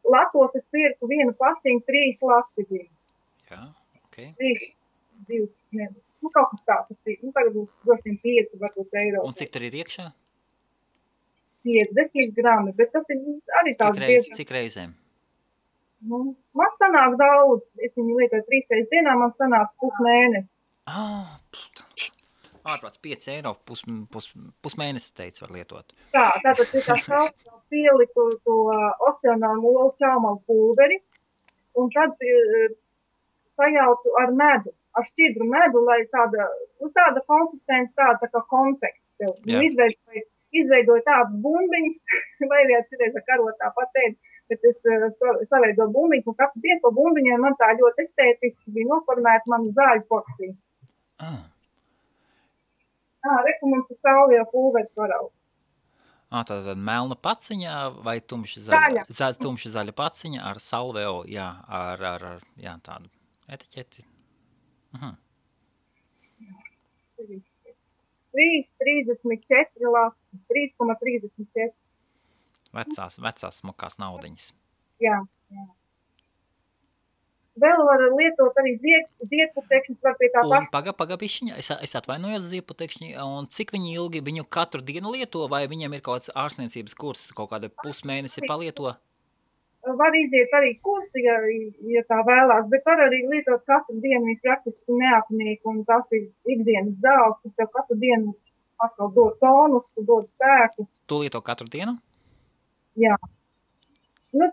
Latos es pirku vienu paciņu 3 lati bija. Jā, ok. 2, kaut kas tāds ir. Tagad būs droši 5, varbūt eiro. Un cik tur ir iekšā? 50 grami, bet tas ir arī tāds diezgan. Cik reizēm? Man sanāk daudz. Es viņu lietoju 3 reizes dienā, man sanāk pusmēnesi. Ārprāts 5 eiro pusmēnesi, teica, var lietot. Tātad ir tā salvio pieliku to osteonormu olu caumalu pulveri, un tad sajaucu ar medu, ar šķidru medu, lai tāda konsistence, tā kā konfekts. Izveidoju tādas bumbiņas, vai arī citreiz ar karotā patēdi, bet es saveidoju bumbiņas, un katru dienu pa bumbiņai man tā ļoti estētiski bija noformēta manu zāļu porciju. Reku mums ir salvio pulveris varaugs. Tātad melna paciņa vai tumši zaļa paciņa ar salvio, ar tādu etiķeti. 3,34 lati, 3,34. Vecās smukās naudiņas. Jā. Vēl var lietot arī ziedputekšņus, var pie tā paša. Pagabišķiņa, es atvainojos ziedputekšņi, un cik viņi ilgi viņu katru dienu lieto, vai viņam ir kaut kāds ārstniecības kurs, kaut kāda pusmēnesi palieto? Var iziet arī kursi, ja tā vēlās, bet var arī lietot katru dienu, viņš praktiski neapnīk, un tas ir ikdienas zāles, kas tev katru dienu atkal dod tonus, dod spēku. Tu lieto katru dienu? Jā.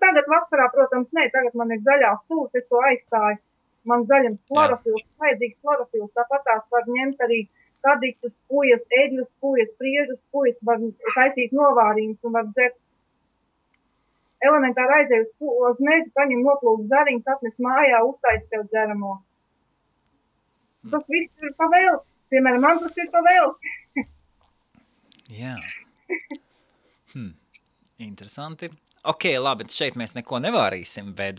Tagad vasarā, protams, tagad man ir zaļās sūs, es to aizstāju. Man zaļams klorofils, vajadzīgs klorofils, tāpat tās var ņemt arī kadiķus, skujas, eļļus, skujas, priežus, skujas, var taisīt novārījumus un var dzert. Elementāri aizēju uz mežu, paņem noplūkt zariņus, atnes mājā, uztais tev dzeramo. Tas viss ir pa vēl. Piemēram, man tas ir pa vēl. Jā. Interesanti. Ok, labi, šeit mēs neko nevārīsim, bet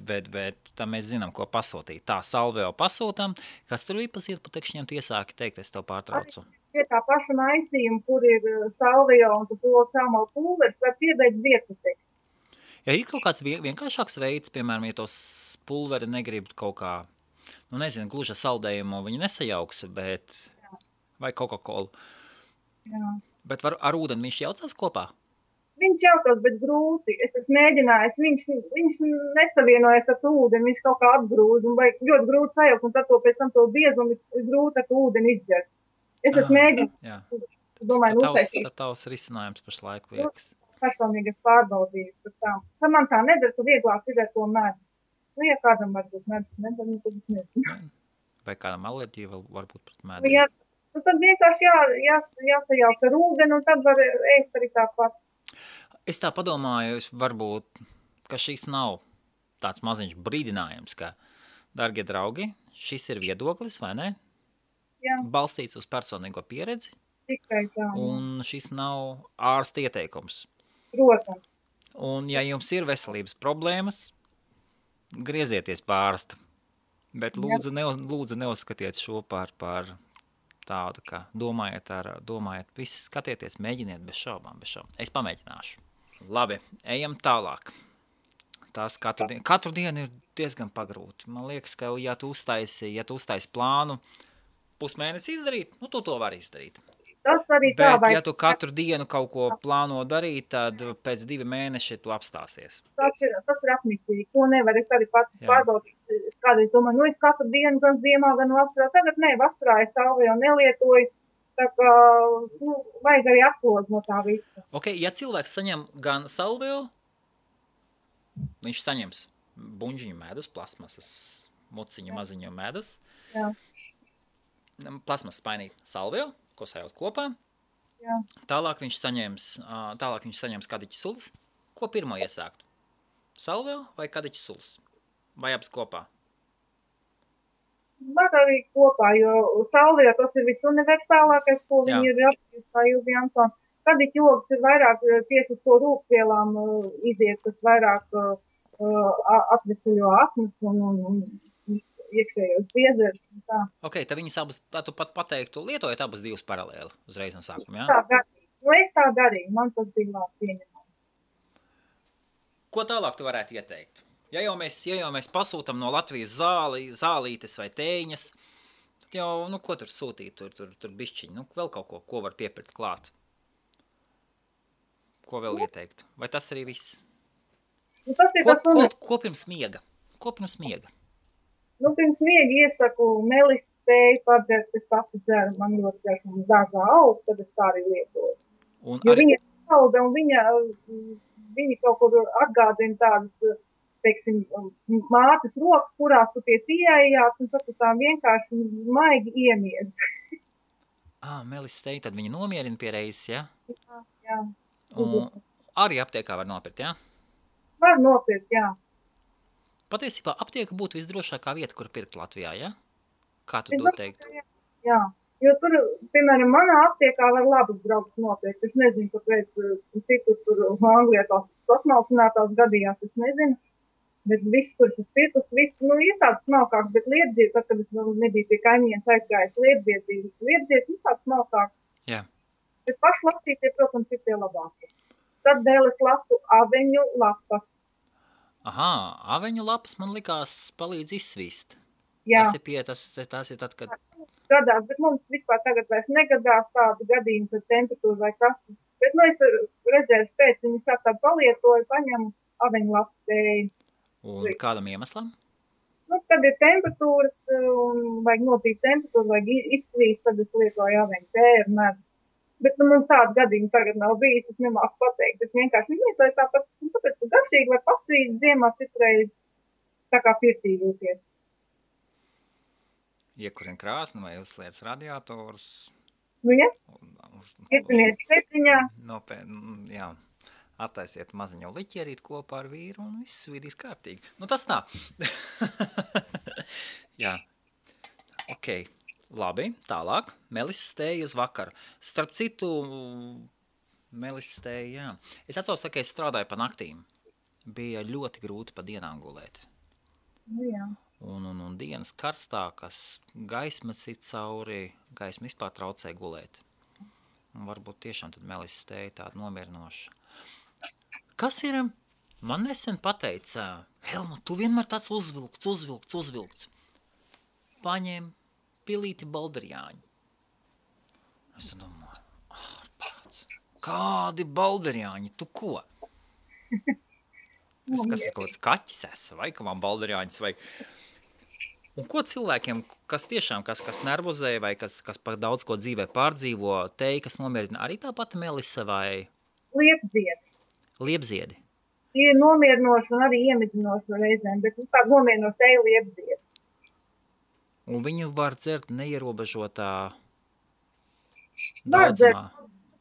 tā mēs zinām, ko pasūtīt. Tā, salvio pasūtam. Kas tur bija pa ziedputekšņiem, tu iesāki teikt, es tev pārtraucu. Pie tā paša maisījuma, kur ir salvio un tas olu caumalu pulveris, var piedēt ziedputekšņi. Ja ir kaut kāds vienkāršāks veids, piemēram, ja tos pulveri negrib kaut kā, gluži saldējumu viņi nesajauks, bet vai Coca-Cola. Jā. Bet ar ūdeni viņš jaucās kopā? Viņš jautās, bet grūti. Es esmu mēģinājis, viņš nesavienojas ar ūdeni, viņš kaut kā atgrūž, un vajag ļoti grūti sajaukt, un tad pēc tam to biezumu ir grūti ar ūdeni izģert. Es esmu mēģinājis, domāju, uztaisīt. Tad tavs risinājums pašlaik liekas. Personīgas pārbaudījis par tām. Tā man tā nedara, ka vieglāk ir ar to medu. Ja kādam varbūt medu, tad nezinu. Vai kādam alerģija varbūt pret medu? Jā, tad vienkārši jāsajaukt ar ūdeni, un tad var ēst arī tāpat. Es tā padomāju, varbūt, ka šis nav tāds maziņš brīdinājums, ka, dargie draugi, šis ir viedoklis, vai ne? Jā, Balstīts uz personīgo pieredzi, tikai tā, jā. un šis nav ārsta ieteikums. Protams. Un, ja jums ir veselības problēmas, griezieties pie ārsta. Bet lūdzu neuzskatiet šo par tādu, ka domājiet, viss skatieties, mēģiniet bez šaubām. Es pamēģināšu. Labi, ejam tālāk. Tās katru dienu ir diezgan pagrūti. Man liekas, ka ja tu uztaisi plānu pusmēnesi izdarīt, nu tu to vari izdarīt. Tas arī tā Bet, vai ja tu katru dienu kaut ko plāno darīt, tad pēc 2 mēneši tu apstāsies. tas ir apnicīgi. To nevar es arī pats pārbaudīt. Kādreiz domāju, es katru dienu, gan ziemā, gan vasarā. Tagad vasarā es salviju nelietoju. Tā kā, vajag arī atslodzi no tā visa. Ok, ja cilvēks saņem gan salviju, viņš saņems buņģiņu medus, plasmasas muciņu maziņu medus, Jā. Plasmasas spainīt salviju, ko sajūt kopā. Jā. Tālāk viņš saņems kadiķi sulas. Ko pirmo iesākt? Salviju vai kadiķi sulas? Vai abas kopā? Var arī kopā, jo salvijā tas ir visuniversālākais, ko viņi ir apstījuši, kā Ilvi Antoni. Kadiķi jogas ir vairāk tieši uz to rūkvielām iziet, kas vairāk atvesaļo aknas un iekšējos biezers. Ok, tad viņas abas, tā tu pat pateiktu, lietojat abas divas paralēli uzreiz no sākuma, jā? Tā darīju. Es tā darīju, man tas bija labi pieņemams. Ko tālāk tu varētu ieteikt? Ja jau mēs pasūtam no Latvijas zālītes vai tēņas, tad jau, ko tur sūtīt, tur bišķiņi, vēl kaut ko var piepirkt klāt. Ko vēl ieteikt? Vai tas arī viss? Ko pirms miega? Pirms miega iesaku melises tēju padzert, es pati dzeru, man ļoti garšo dārzā aug, tad es tā arī lietoju. Jo viņa salda un viņa kaut kur atgādina tādas, teiksim, mātes rokas, kurās tu tie ieejāt, un tad tu tā vienkārši maigi iemiedz. Melises tēju, tad viņa nomierina pie reizes, ja? Jā. Un arī aptiekā var nopirkt, jā? Var nopirkt, jā. Patiesībā aptieka būtu visdrošākā vieta, kur pirkt Latvijā, ja? Kā tu to teiktu? Jā, jo tur, piemēram, manā aptiekā var labas draugas nopirkt. Es nezinu, kāpēc citur tur Anglijā tās sasmalcinātās gadījās, es nezinu. Bet viss, kuras es pirkus, viss, ir tāds smalkāks, bet liepdziet, tad, kad es nebiju pie kaimiņiem aizgājis, liepdziet, tāds smalkāks. Jā. Bet pašlasītie, protams, ir tie labākie. Tad vēl es lasu aveņu lapas. Aveņu lapas man likās palīdz izsvīst. Jā. Tas ir tad, kad... Gadās, bet mums vispār tagad vairs negadās tādu gadījumu, kad temperatūra vai kas. Bet, es redzēju spēc, viņi tā palietoju, paņemu aveņu lapu tēju. Un kādam iemeslam? Kad ir temperatūras, un vajag notīt temperatūru, vajag izsvīst, tad es lietoju aveņu tēju ar medu. Bet mums tādu gadījumu tagad nav bijis, es nemāku pateikt. Es vienkārši lietoju tāpēc, ka garšīgi var pasvīt ziemā citreiz tā kā pirtī jūties. Iekurina krāsni vai uzsliec radiatorus. Ja? Ietiniet setiņā. Jā. Attaisiet maziņu liķierīt kopā ar vīru un viss vidīs kārtīgi. Tas tā. Jā. Ok. Labi, tālāk. Melises tēja uz vakaru. Starp citu, melises tēja, jā. Es atceros, ka es strādāju pa naktīm. Bija ļoti grūti pa dienām gulēt. Jā. Un dienas karstākas, gaisma cit cauri, gaisma vispār traucē gulēt. Un varbūt tiešām tad melises tēja tāda nomierinoša. Kas ir? Man nesen pateica, Helmut, tu vienmēr tāds uzvilkts. Paņem pilīti balderjāņi. Es domāju, ārprāts, kādi balderjāņi, tu ko? Es kas kaut kāds kaķis esi, vai ka man balderjāņas vajag. Un ko cilvēkiem, kas tiešām, kas nervozē, vai kas par daudz ko dzīvē pārdzīvo, tēja, kas nomierina, arī tā pati melise vai? Liepziedi. Tie ir nomierinoši un arī iemidzinoši reizēm, bet tā nomierinoši tēja liepziedi. Un viņu var dzert neierobežotā daudzumā.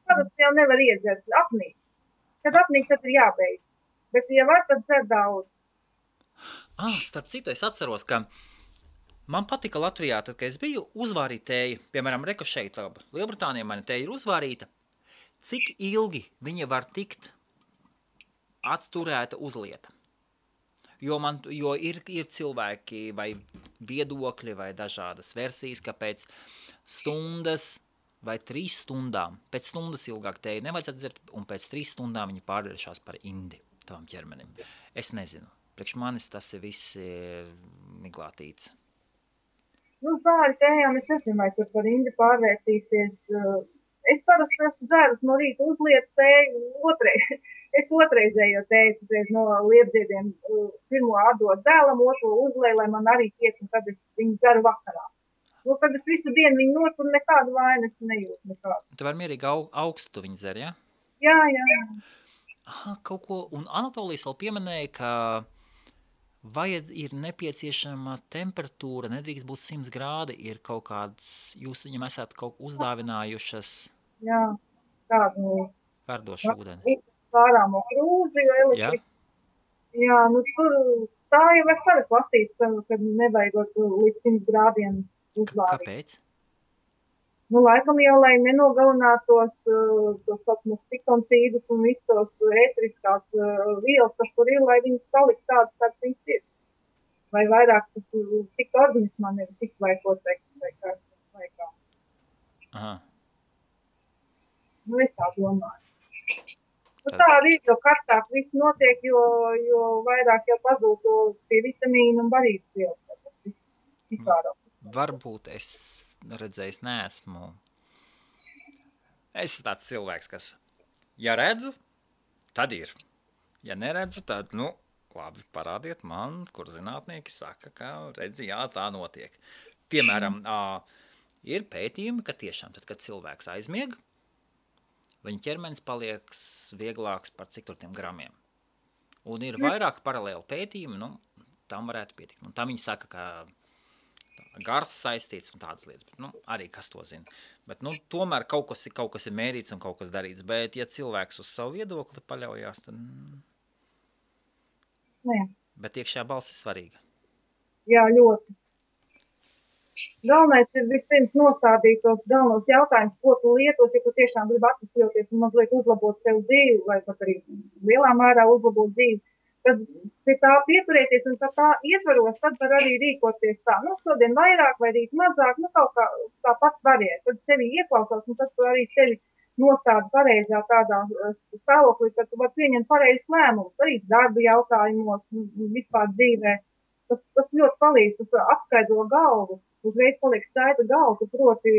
Parasti jau nevar iedzert apnīt. Kad apnīk, tad ir jābeidz. Bet, ja var, tad dzer daudz. Starp citu, es atceros, ka man patika Latvijā, tad, kad es biju uzvārīt tēju, piemēram, reku šeit, Lielbritānijā mana tēja ir uzvārīta, cik ilgi viņa var tikt atturēta uz lieta. Jo ir cilvēki vai viedokļi vai dažādas versijas, ka pēc stundas vai 3 stundām, pēc stundas ilgāk tēju nevajadzētu dzert, un pēc 3 stundām viņi pārvēršās par indi tavam ķermenim. Es nezinu. Priekš manis tas ir viss miglātīts. Nu, pāri tējām es nezinu, vai tur par indi pārvērtīsies. Es parasti esmu dzērus no rīta uzlietu tēju, es otrreizējo tēju no liepdziediem pirmo atdot dēlam, otro uzlēju, lai man arī tiek, un tad es viņu dzeru vakarā. Nu, kad es visu dienu viņu notur, nekādu vainas nejūtu nekādu. Tu vari mierīgi augstu tu viņu dzer, ja? Jā. Kaut ko, un Anatolijas vēl pieminēja, ka ir nepieciešama temperatūra, nedrīkst būt 100 grādi, ir kaut kāds, jūs viņam esat kaut uzdāvinājušas tādu verdošu ūdeni. Pārāmo krūzi, elektris. Jā, nu tur tā jau es arī klasīju, kad nevajagot līdz 100 grādiem uzvārīt. Kāpēc? Nu, laikam jau, lai nenogalinātos tos stikoncīdus un visus tos ētriskās vielas, kas tur ir, lai viņas palikt tādas, kāds viņas ir. Vai vairāk tas tiktu organismā nevis izklaikot vai kā. Aha. Nu, es tā domāju. Nu, tā arī, jo karstāk viss notiek, jo vairāk jau pazūd tie vitamīni un barības vielas. Varbūt es redzējis neesmu. Es esmu tāds cilvēks, kas, ja redzu, tad ir. Ja neredzu, tad, labi, parādiet man, kur zinātnieki saka, ka redzi, jā, tā notiek. Piemēram, ir pētījumi, ka tiešām tad, kad cilvēks aizmieg, viņa ķermenis paliek vieglāks par cik tur tiem gramiem. Un ir vairāk paralēli pētījumi, tam varētu pietikt. Un tam viņi saka, ka gars saistīts un tādas lietas, bet, arī kas to zina. Bet, tomēr kaut kas ir mērīts un kaut kas darīts, bet, ja cilvēks uz savu viedokli paļaujās, tad... Jā. Bet iekšējā balss ir svarīga. Jā, ļoti. Galvenais ir vispirms nostādīt tos galvenos jautājumus, ko tu lietos, ja tu tiešām gribi atvesļoties un mazliet uzlabot sev dzīvi, vai pat arī lielā mērā uzlabot dzīvi. Tad pie tā pieturēties un tā ietvaros, tad var arī rīkoties tā. Šodien vairāk vai rīt mazāk, kaut kā tā pats variet. Tad sevi ieklausās un tad tu arī sevi nostādi pareizā tādā stāvoklī, ka tu var pieņemt pareizes lēmumus, arī darba jautājumos, vispār dzīvē. Tas ļoti palīdz, tas apskaidro galvu. Uzreiz paliek skaidra galva, tu proti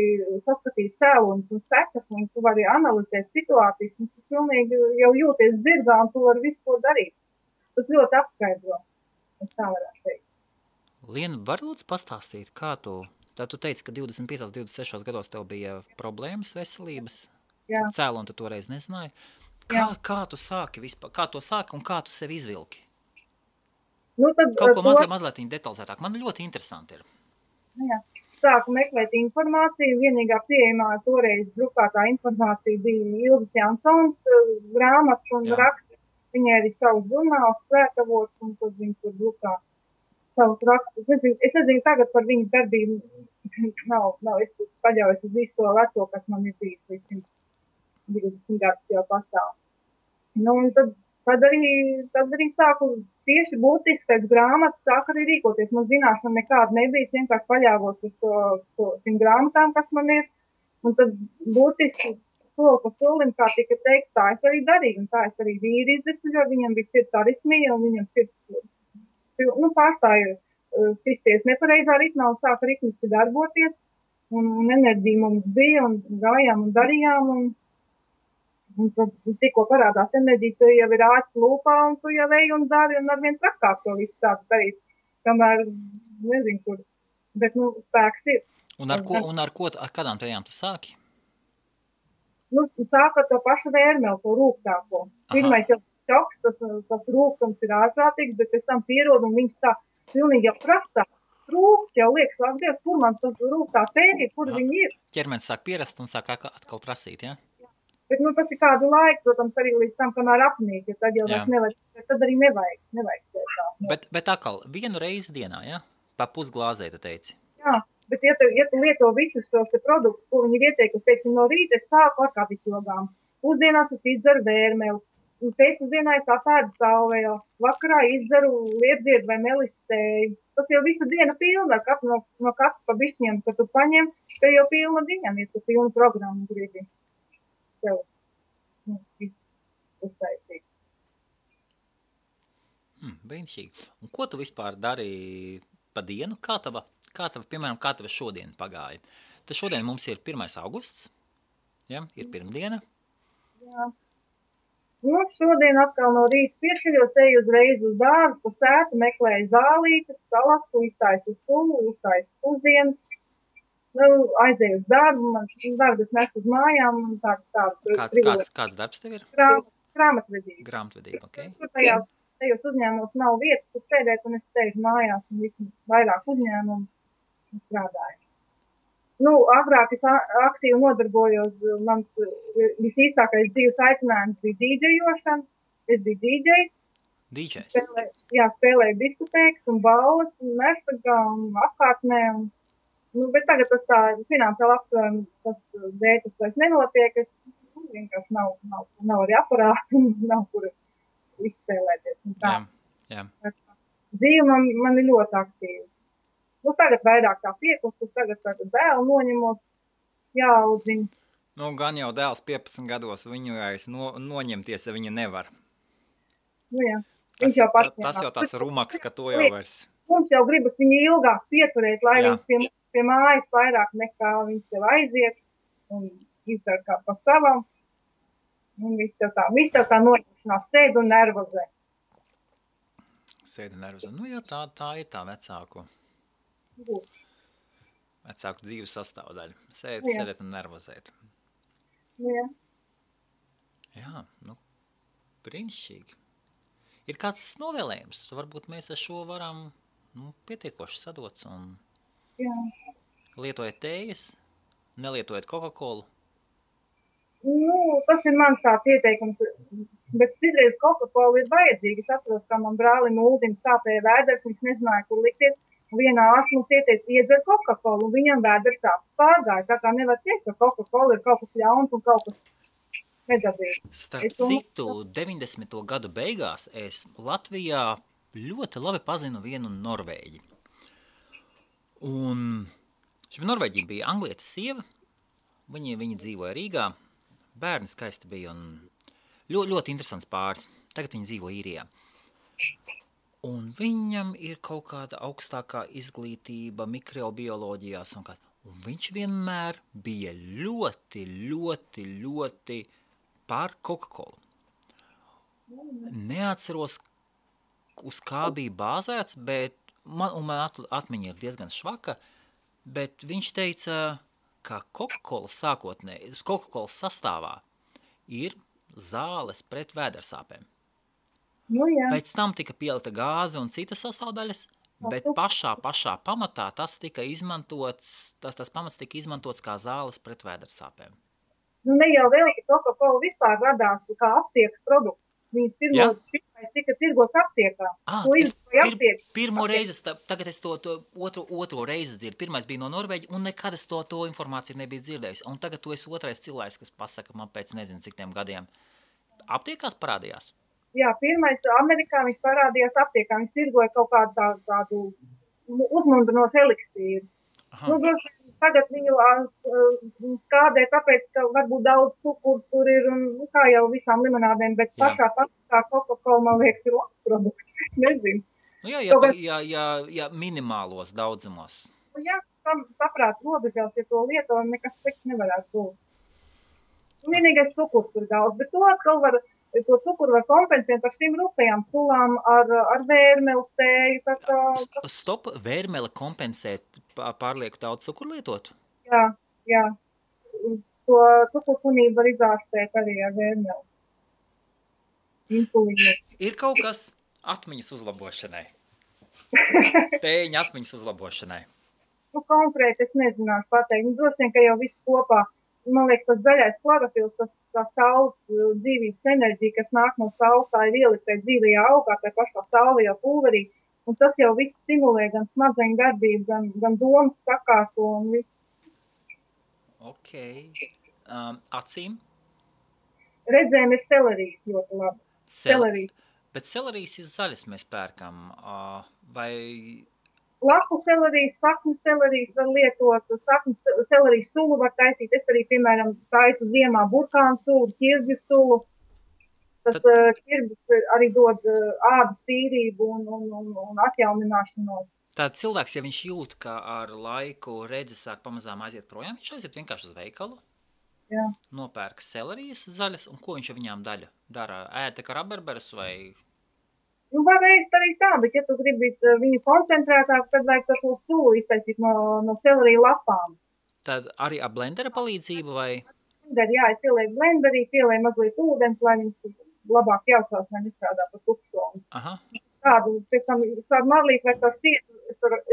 saskatīt cēloņus un sekas, un tu vari analizēt situācijas, un tu pilnīgi jau jūties dzirdā, un tu vari visu to darīt. Tas ļoti apskaidro. Es tā varētu teikt. Liena, var lūdzu pastāstīt, kā tu teici, ka 25, 26 gados tev bija problēmas veselības? Jā. Cēloni tu toreiz nezināji. Kā tu sāki vispār? Kā tu sāki un kā tu sevi izvilki? Kaut ko mazliet detalizētāk. Man ļoti interesanti ir. Jā. Sāku meklēt informāciju. Vienīgā pieejamā toreiz drukātā informācija bija Ilgas Jansons grāmatas un raksts. Viņai arī savus žurnālus svētavots, un tad viņi tur drukā savus rakstus. Es nezinu tagad par viņu darbību. Nav, es paļaujos uz visu to veco, kas man ir bijis līdz 120 gadus jau pastāv. Un tad arī sāku tieši būtiski pēc grāmatas, sāku arī rīkoties. Man zināšana nekāda nebija, vienkārši paļāvos uz tiem grāmatām, kas man ir. Un tad būtiski soli pa solim, kā tika teikts, tā es arī darīju, un tā es arī vīri izdesļoju, viņam bija sirds aritmija, un viņam sirds, pārstāja kristies nepareizā ritmā, un sāka ritmiski darboties, un enerģija mums bija, un gājām un darījām, un tad tikko parādās enerģija, tu jau ir āķis lūpā, un tu jau ej un dari, un arvien trakāk to visu sāk darīt, kamēr, nezinu kur, bet, spēks ir. Un ar kādām tējām tu sāki? Sāk ar to pašu vērmeli, to rūgtāko. Pirmais jau šoks, tas rūgtums ir ārprātīgs, bet pēc tam pierod, un viņš tā pilnīgi jau prasā. Rūgts jau liekas, lāk Dievs, kur man tas rūgtā tēja, kur viņi ir. Ķermenis sāk pierast un sāk atkal prasīt, ja? Bet, tas ir kādu laiku, protams, arī līdz tam, kamēr apnīk, ja tad jau vairs nevajag, tad arī nevajag tā. Bet atkal, vienu reizi dienā, ja? Pa pusglāzē, tu teici? Jā, bet ja tu lieto visus šos te produktus, ko viņi ir ieteikuši, teiksim, no rīta es sāku ar kapitogām, pusdienās es izdzeru vērmeli, pēcpusdienā es apēdu salvēju, vakarā izdzeru liepziedu vai melistēju. Tas jau visa diena pilna, no katra pa bišķiem, kad tu paņem, te jau pilna diena, ja tu pilnu programmu gribi tev uztaisīt. Brīnišķīgi. Un ko tu vispār dari pa dienu? Kā tava šodien pagāja? Tad šodien mums ir 1. augusts, ja? Ir pirmdiena. Jā. Šodien atkal no rīta piešķiļos, eju uzreiz uz dārzu, pa sētu, meklēju zālītes, salasu, iztaisu sulu, uztaisu pusdienas, aizēju uz darbu, man darbas nes uz mājām. Kāds darbs tev ir? Grāmatvedība. Grāmatvedība, ok. Tur tajos uzņēmumos nav vietas, kur sēdēt, un es sēžu mājās, un vismaz vairāk uzņēmumu strādāju. Agrāk es aktīvi nodarbojos, mans visīstākais dzīves aicinājums bija dīdžejošana. Es biju dīdžejs. Dīdžejs? Spēlēju diskotēkas un balles, un mērfagā un apkārtnē. Bet tagad tas tā finansiāli apsvērumi, tas dēļ, tas vairs nenotiek. Es vienkārši nav arī aparātu un nav kur izspēlēties. Jā. Dzīve man ir ļoti aktīva. Tagad vairāk tā piekustus, tagad dēlu noņemos, jāaudzina. Gan jau dēls 15 gados, viņu vairs noņemties, ja viņu nevar. Jā. Tas jau tās rumaks, ka to jau vairs. Mums jau gribas viņu ilgāk pieturēt, lai viņš pie mājas vairāk nekā viņš tev aiziet un izdara kā pa savam. Un viss tev tā noņemšanās sēd un nervozē. Tā ir tā vecāku dzīves sastāvdaļa. Sēdēt un nervozēt. Jā, brīnišķīgi. Ir kāds novēlējums? Varbūt mēs ar šo varam pietiekoši sadots un lietojat tējas, nelietojat Coca-Colu. Tas ir mans tāds ieteikums, bet citreiz Coca-Cola ir vajadzīga. Es atceros, kā man brālim Uldim sāpēja vēders, viņš nezināja, kur likties. Vienā ārsts mums ieteica iedzer Coca-Colu, un viņam vēders sāpes pārgāja. Tā kā nevar teikt, ka Coca-Cola ir kaut kas ļauns un kaut kas nedabīgs. Starp citu, 90. gadu beigās es Latvijā ļoti labi pazinu vienu norvēģi. Un šim norvēģi bija anglieta sieva, viņi dzīvoja Rīgā, bērni skaisti bija un ļoti interesants pāris. Tagad viņi dzīvo Īrijā. Un viņam ir kaut kāda augstākā izglītība mikrobioloģijās un viņš vienmēr bija ļoti par Coca-Colu. Neatceros, uz kā bija bāzēts, bet man atmiņa ir diezgan švaka, bet viņš teica, ka Coca-Cola sastāvā ir zāles pret vēdersāpēm. Pēc tam tika pielita gāze un citas sastāvdaļas, bet pašā pamatā tas pamats tika izmantots kā zāles pret vēdersāpēm. Ne jau vēl, ka Coca-Cola vispār radās kā aptiekas produkts. Viņas pirmais tika tirgots aptiekā. Pirmo reizi, tagad es to otro reizi dzirdu. Pirmais bija no Norvēģa, un nekad es to informāciju nebiju dzirdējis. Un tagad tu esi otrais cilvēks, kas pasaka man pēc nezinu cik tiem gadiem. Aptiekās parādījās? Jā, pirmais Amerikā viņš parādījās aptiekā. Viņš tirgoja kaut kādu uzmundrinošu eliksīru. Tagad viņu skādē, tāpēc, ka varbūt daudz cukurs tur ir, un kā jau visām limonādēm, bet pašā Coca-Cola, man liekas, ir labs produkts. Nezinu. Ja minimālos daudzumos. Jā, saprāt, robežās, ja to lieto, nekas slikts nevarētu būt. Vienīgais cukurs tur daudz, bet to atkal to cukuru var kompensēt ar šīm rupējām sulām, ar vērmeli stēju. Stop, vērmeli kompensēt pārlieku daudz cukuru lietot? Jā. To cukursunību var izārstēt arī ar vērmeli. Insulīnu. Ir kaut kas atmiņas uzlabošanai? Tēņa atmiņas uzlabošanai? Konkrēti es nezināšu pateikt. Droši vien, ka jau viss kopā. man liekas, tas zaļais klorofils, tā saules dzīvības enerģija, kas nāk no saules, tā ir ieliktē dzīvajā augā, tā pašā saulajā pulverī, un tas jau viss stimulē gan smadzeņu darbību, gan domas sakārto un viss. Ok. Acīm? Redzēm ir selerijas ļoti labi. Selerijas. Bet selerijas ir zaļas mēs pērkam, vai... Lapu selerijas, saknu selerijas var lietot, saknu selerijas sulu var taisīt. Es arī, piemēram, taisu ziemā burkānu sulu, ķirbju sulu. Tas ķirbis arī dod ādas tīrību un atjaunināšanos. Tātad cilvēks, ja viņš jūt, ka ar laiku redzi sāk pamazām aiziet projām, viņš aiziet vienkārši uz veikalu, jā. Nopērk selerijas zaļas, un ko viņš ar viņām dara? Ēta kā rabarberas vai... Nu, var ēst arī tā, bet ja tu gribi viņu koncentrētāk, tad vajag to sulu iztaisīt no selerija lapām. Tad arī ar blendera palīdzību vai? Jā, es pielieku blenderī, pielieku mazliet ūdens, lai viņas labāk jaucās, lai nestrādā par tukšomu. Aha. Tādu, pēc tam, tādu marlīti vai tā sietu,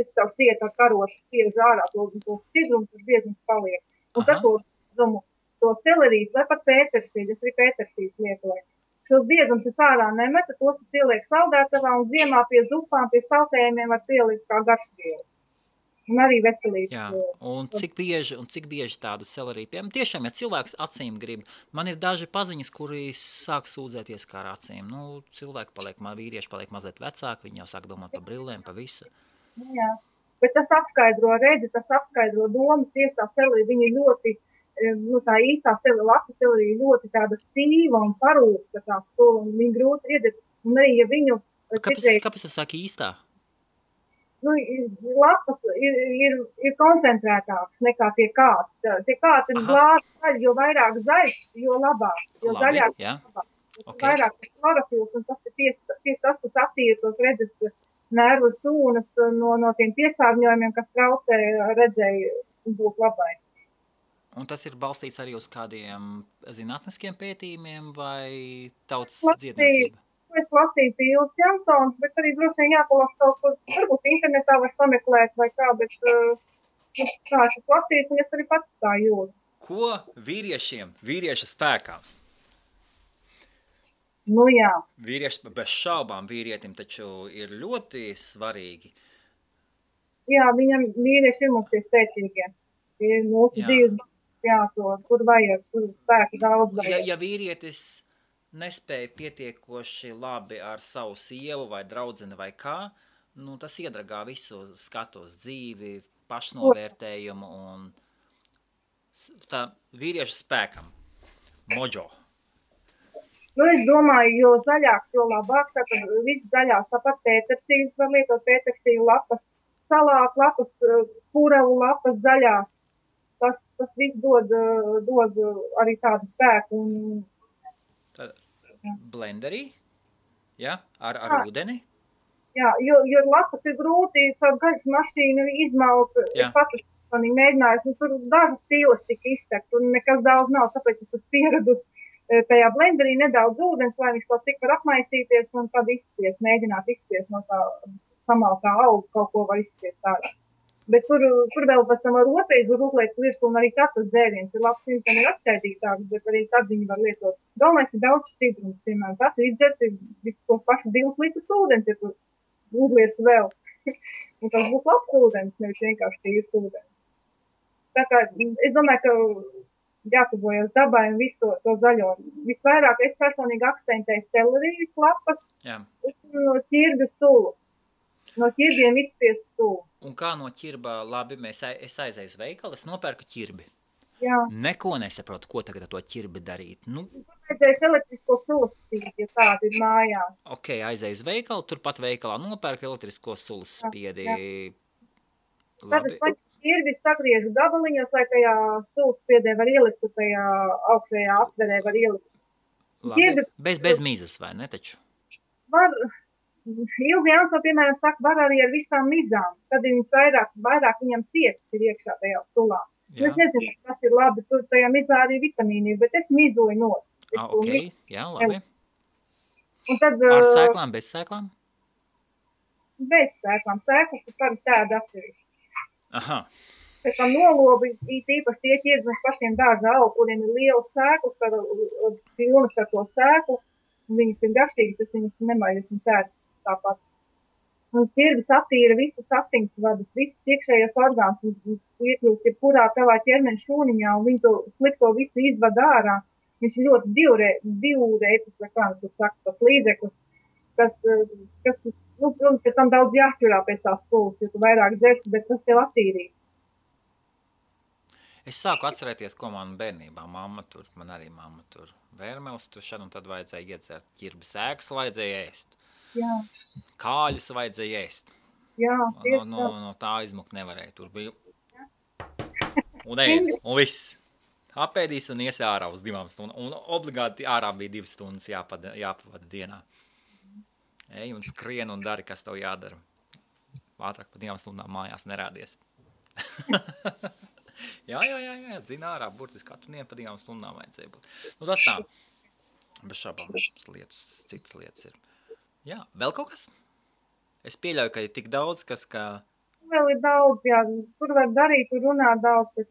es tavu sietu ar karošu spiežu ārā, to sidrumu, tas biezums paliek. Un tad to selerijas vai pat pētersīļu, es arī pētersīļu lietoju. Šos biezums es ārā nemetu, tos es ielieku saldētavā un ziemā pie zupām, pie saltējumiem var pielikt kā garšvielu. Un arī veselības. Jā, un cik bieži tādu seleriju pieejam? Tiešām, ja cilvēks acīm grib, man ir daži paziņas, kuri sāk sūdzēties kā ar acīm. Nu, vīrieši paliek mazliet vecāki, viņi jau sāk domāt par brillēm, par visu. Jā, bet tas apskaidro redzi, tas apskaidro domas, tieši tā selerija, viņi ļoti... Nu, tā īstā lapu selerija ļoti tāda sīva un parūkta tā sula, un viņa grūti iedēt. Un arī, ja viņu... Kāpēc es saku īstā? Nu, lapas ir koncentrētāks nekā tie kāti. Tie kāti ir glāzi, jo vairāk zaļš, jo labāk. Jo Labi, zaļāk, jā. labāk. Okay. Vairāk klorofils, un tas ir tieši tas, kas attīra tos redzes nervu šūnas no tiem piesārņojumiem, kas traucē redzēju būt labai. Un tas ir balstīts arī uz kādiem zinātniskiem pētījumiem vai tautas dziedniecība? Es lasīju Pīls Jansons, bet arī droši vien jāpalas kaut kur, varbūt internetā var sameklēt vai kā, bet tā es lasīju, un es arī pats tā jūtu. Ko vīrieša spēkā? Nu jā. Vīrieši, bez šaubām vīrietim taču ir ļoti svarīgi. Jā, viņam vīrieši ir mums tie spēcīgie. Tie ir mūsu dzīves. Jā, tur vajag, tur spēku daudz vajag. Ja vīrietis nespēja pietiekoši labi ar savu sievu vai draudzeni vai kā, nu tas iedragā visu skatu uz dzīvi, pašnovērtējumu un tā vīrieša spēkam. Mojo. Nu, es domāju, jo zaļāks, jo labāk, tātad viss zaļās, tāpat pētersīļus var lietot, pētersīļu lapas, salātu lapas, puravu lapas zaļās. Tas viss dod arī tādu spēku. Blenderī? Ja? Ar ūdeni? Jā, jo lapas ir grūti, caur gaļas mašīnu izmalt. Es pats esmu mēģinājis, tur dažas stīles tika iztekt, tur nekas daudz nav, tāpēc es esmu pieredus tajā blenderī nedaudz ūdens, lai viņš kaut cik var apmaisīties un tad izspiest, mēģināt izspiest no tā samaltā auga, kaut ko var izspiest tādā. Bet tur vēl pēc tam ar otrais var uzliekt virsū, un arī tas dzēriens ir labs, viņš tam ir atšķaidītāks, bet arī tad viņi var lietot. Galvenais ir daudz šķidrums, piemēram, tas izdzers ir visu pašu 2 litrus ūdens, ja tu uzliec vēl. Un tas būs labs ūdens, nevis vienkārši tīrs ūdens. Tā kā es domāju, ka jātuvojas dabai un visu to zaļo. Visvairāk es personīgi akcentēju selerijas lapas un ķirbju sulu. No ķirbiem izspiest sulu. Un kā no ķirba, labi, es aizēju uz veikalu, es nopērku ķirbi. Jā. Neko nesaprotu, ko tagad ar to ķirbi darīt. Nu, vajadzēs elektrisko sulas spiedi, ja tāda ir mājās. Ok, aizēju uz veikalu, turpat veikalā nopērku elektrisko sulas spiedi. Tad es ķirbi sagriežu gabaliņos, lai tajā sulas spiedē var ielikt, tajā augšējā aptverē var ielikt. Labi, ķirbi, bez mizas, vai ne taču? Var... Ilgi Janso, piemēram, saka, var arī ar visām mizām, tad viņas vairāk viņam cietas ir iekšā tajā sulā. Es nezinu, kas ir labi, tur tajā mizā arī vitamīni ir, bet es mizoju no. Ok, jā, labi. Un tad, ar sēklām, bez sēklām? Bez sēklām. Sēklas ir par tādu atsevišķi. Aha. Pēc tam nolobi, īpaši tie ķirbis pašiem dārza augu, kuriem ir liels sēklis, pilnas ar to sēklu, un viņas ir garšīgas, tas viņas nemaiļas un tēr tāpat. Un ķirbis attīra visas asinsvadus, visas iekšējās orgāns, un iekļūst jebkurā tavā ķermeņa šūniņā, un viņi to slikto visu izvada ārā. Viņš ir ļoti divreitis, vai kā tu saka, tas līdzeklis, kas protams, pēc tam daudz jāķurā pēc tās sulas, jo tu vairāk dzersi, bet tas tev attīrīs. Es sāku atcerēties, ko man bērnībā man arī mamma tur vērmeles, tur šad un tad vajadzēja iedzert ķirbi sēkas, vajadzēja ēst. Jā. Kāļus vajadzēja ēst. Jā, no tā izmukt nevarēja. Tur bija un ēd, un viss. Apēdīs un ies ārā uz 2 stundām. Un obligāti ārā bija 2 stundas jāpavada dienā. Ej un skrien un dari, kas tev jādara. Ātrāk pa 2 stundām mājās nerādies. jā, dzina ārā, burtiski katru dienu pa 2 stundām vajadzēja būt. Nu tas tā, bez šabām citas lietas ir. Jā, vēl kaut kas? Es pieļauju, ka ir tik daudz, kas kā... Vēl ir daudz, jā, tur var darīt, tur runāt daudz, bet,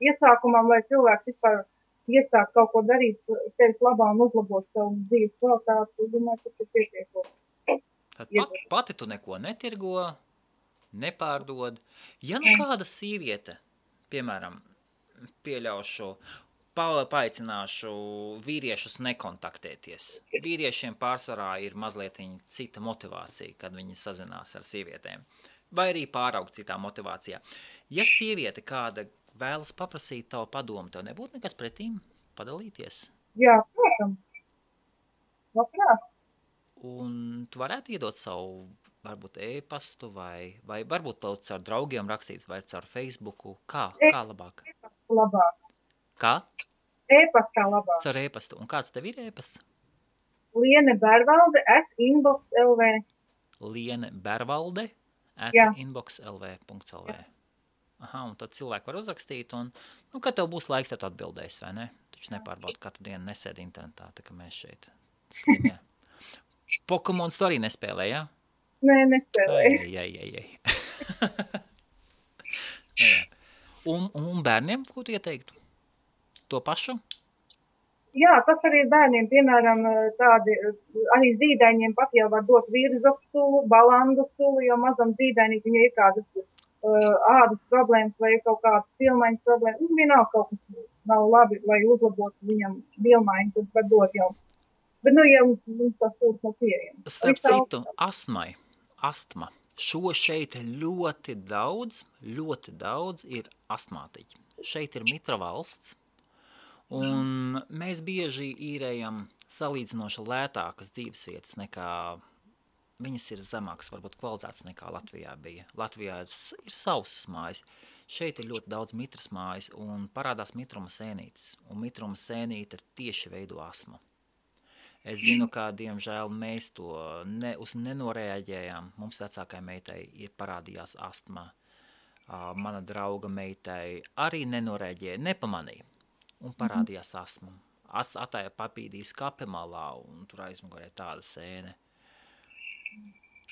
iesākumā, lai cilvēks vispār iesāk kaut ko darīt, sevis labā un uzlabot savu dzīves kvalitāti, domāju, tas ir pietiekot. Tad pati tu neko netirgo, nepārdod. Ja nu kāda sīviete, piemēram, pieļaušu, paaicināšu vīriešus nekontaktēties. Vīriešiem pārsvarā ir mazliet cita motivācija, kad viņi sazinās ar sievietēm. Vai arī pāraugt citā motivācijā. Ja sieviete kāda vēlas paprasīt tavu padomu, tev nebūtu nekas pretīm padalīties? Jā, protams. Labprāt. Un tu varētu iedot savu, varbūt e-pastu vai varbūt tev caur draugiem rakstīts vai caur Facebooku. Kā labāk? E-pastu labāk. Kā? E-pastā labāk. Caur e-pastu. Un kāds tev ir e-pasts? lienebervalde@inbox.lv lienebervalde@inbox.lv. Aha, un tad cilvēki var uzrakstīt, un, kad tev būs laiks, tev atbildēs, vai ne? Taču nepārbauda katru dienu nesēdi internetā, tā kā mēs šeit slimie. Pokemons tu arī nespēlē, jā? Nē, nespēlēju. Ai. Un bērniem, ko tu ieteiktu? To pašu? Jā, tas arī bērniem, piemēram, tādi, arī zīdaiņiem pat jau var dot virzas sulu, balandu sulu, jo mazam zīdainī viņai ir kādas ādas problēmas vai kaut kādas vilmaiņas problēmas. Vienalga kaut kas nav labi, lai uzlabotu viņam vilmaiņu, tad var dot jau. Bet, ja mums tas sūds nav pieejams. Starp citu, astma. Šo šeit ļoti daudz ir astmātiķi. Šeit ir mitra valsts, un mēs bieži īrējam salīdzinoši lētākas dzīvesvietas nekā, viņas ir zemākas, varbūt kvalitātes nekā Latvijā bija. Latvijā ir sausas mājas, šeit ir ļoti daudz mitras mājas, un parādās mitruma sēnītes, un mitruma sēnīte tieši veido astmu. Es zinu, ka, diemžēl, mēs to nenoreaģējām. Mums vecākai meitai ir parādījās astma. Mana drauga meitai arī nenoreaģēja, nepamanīja. Un parādījās astma. Atāja papīdīs kape malā, un tur aizmugurē tāda sēne.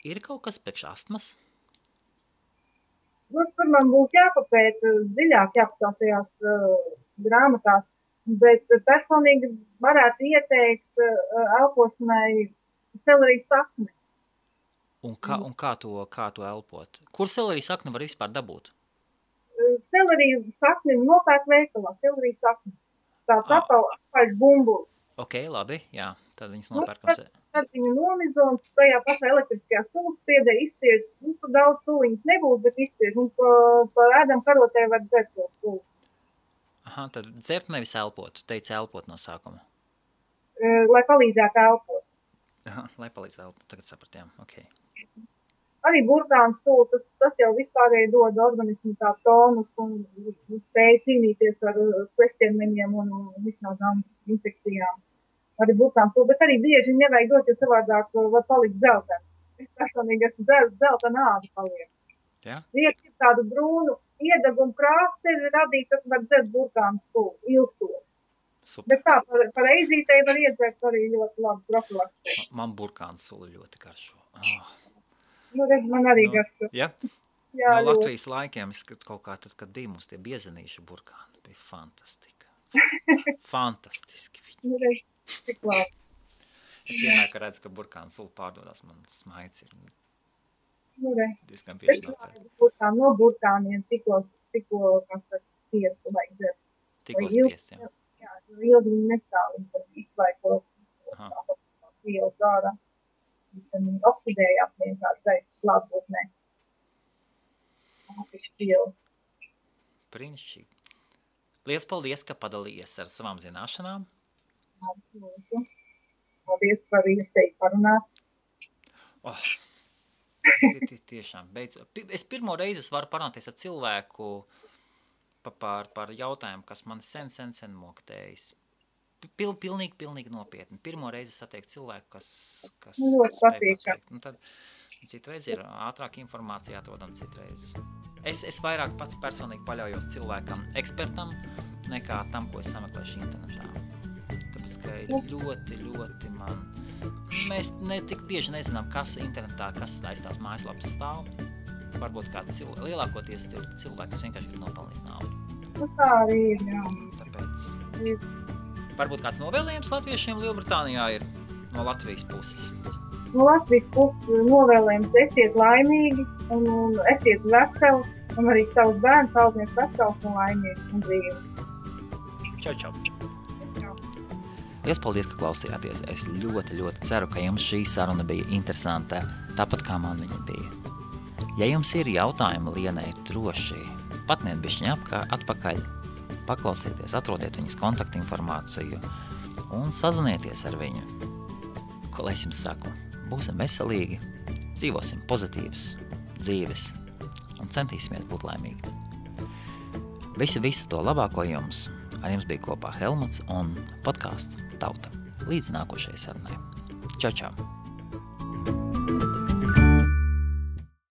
Ir kaut kas priekš astmas? Tur man būs jāpapēt dziļāk, jāpatās tajās grāmatās. Bet personīgi varētu ieteikt elpošanai selerijas sakni. Un kā to elpot? Kur selerijas sakni var vispār dabūt? Selerijas sakni nopērk veikalā, selerijas sakni. Tā apaļš bumbulis. Ok, labi, jā, tad viņas nopērkam. Tad viņu nomizo un tajā pašā elektriskajā sulaspiedē izspiež. Tur daudz suliņas nebūs, bet izspiež. Un pa ēdam karotē var dzert to sulu. Aha, tad dzert nevis elpot. Tu teici elpot no sākuma. Lai palīdzētu elpot. Aha, lai palīdzētu elpot. Tagad sapratījām. Ok. Arī burkānu sula, tas jau vispārēji dod organismu tā tonus un spēj cīnīties ar svešķermeņiem un visādām infekcijām. Arī burkānu sula, bet arī bieži nevajag dot, jo savādāk var palikt zeltena. Es personīgi esmu zeltena āda paliek. Jā? Liek ir tādu brūnu iedegumu krāsu sevi radīt, tad var dzert burkānu sulu, ilgstot. Super. Bet tā, par eizītei var iedzert arī ļoti labi profilaktiski. Man burkānu sula ļoti garšo. Nu, redz, man arī garšo. Ja? Jā, No ļoti. Latvijas laikiem, es kaut kā tad, kad bija mums tie biezenīšu burkāni, bija fantastika. Fantastiski viņi. Nu, redz, cik labi. Es vienmēr, kad redzu, ka burkāna sula pārdodās, man smaids ir Nu, redz. diezgan Es bieži nopērk. burkāni no burkāniem tikko, kas tad spiestu vajag dzert. Tikko Vai ilgi- spiest, jā. Jā, jo ilgi viņi nestāv, viņi tad izlaiko Aha. vielas ārā. Viņi oksidējās vienkārši gaisa klātbūtnē. Brīnišķīgi. Liels paldies, ka padalījies ar savām zināšanām. Paldies par iespēju parunāt. Oh, tiešām, beidz. Es pirmo reizi varu parunāties ar cilvēku par jautājumu, kas man sen moktējis. Pilnīgi nopietni. Pirmo reizi satieku cilvēku, kas Ļoti spēj patīkami. pateikt. Nu, tad citreiz ir ātrāk informācija atrodam citreiz. Es vairāk pats personīgi paļaujos cilvēkam, ekspertam, nekā tam, ko es sameklēšu internetā. Tāpēc, ka ļoti man... Mēs tik bieži nezinām, kas internetā, kas aiz tās mājaslapas stāv. Varbūt kāda lielākoties tur cilvēki, kas vienkārši grib nopelnīt naudu. Nu, tā arī ir, jā. Tāpēc... Ir. Varbūt kāds novēlējums latviešiem Lielbritānijā ir no Latvijas puses. No Latvijas puses novēlējums esiet laimīgi un esiet veseli un arī savus bērnus audziniet vesels un laimīgi un dzīves. Čau. Liels paldies, ka klausījāties. Es ļoti ceru, ka jums šī saruna bija interesanta, tāpat kā man viņa bija. Ja jums ir jautājumi Lienai, droši patniet bišķiņ atpakaļ, paklausieties, atrodiet viņas kontaktinformāciju un sazinieties ar viņu. Ko lai es jums saku? Būsim veselīgi, dzīvosim pozitīvas dzīves un centīsimies būt laimīgi. Visu to labāko jums! Ar jums bija kopā Helmuts un podcasts Tauta. Līdz nākošajai sarunai. Čau!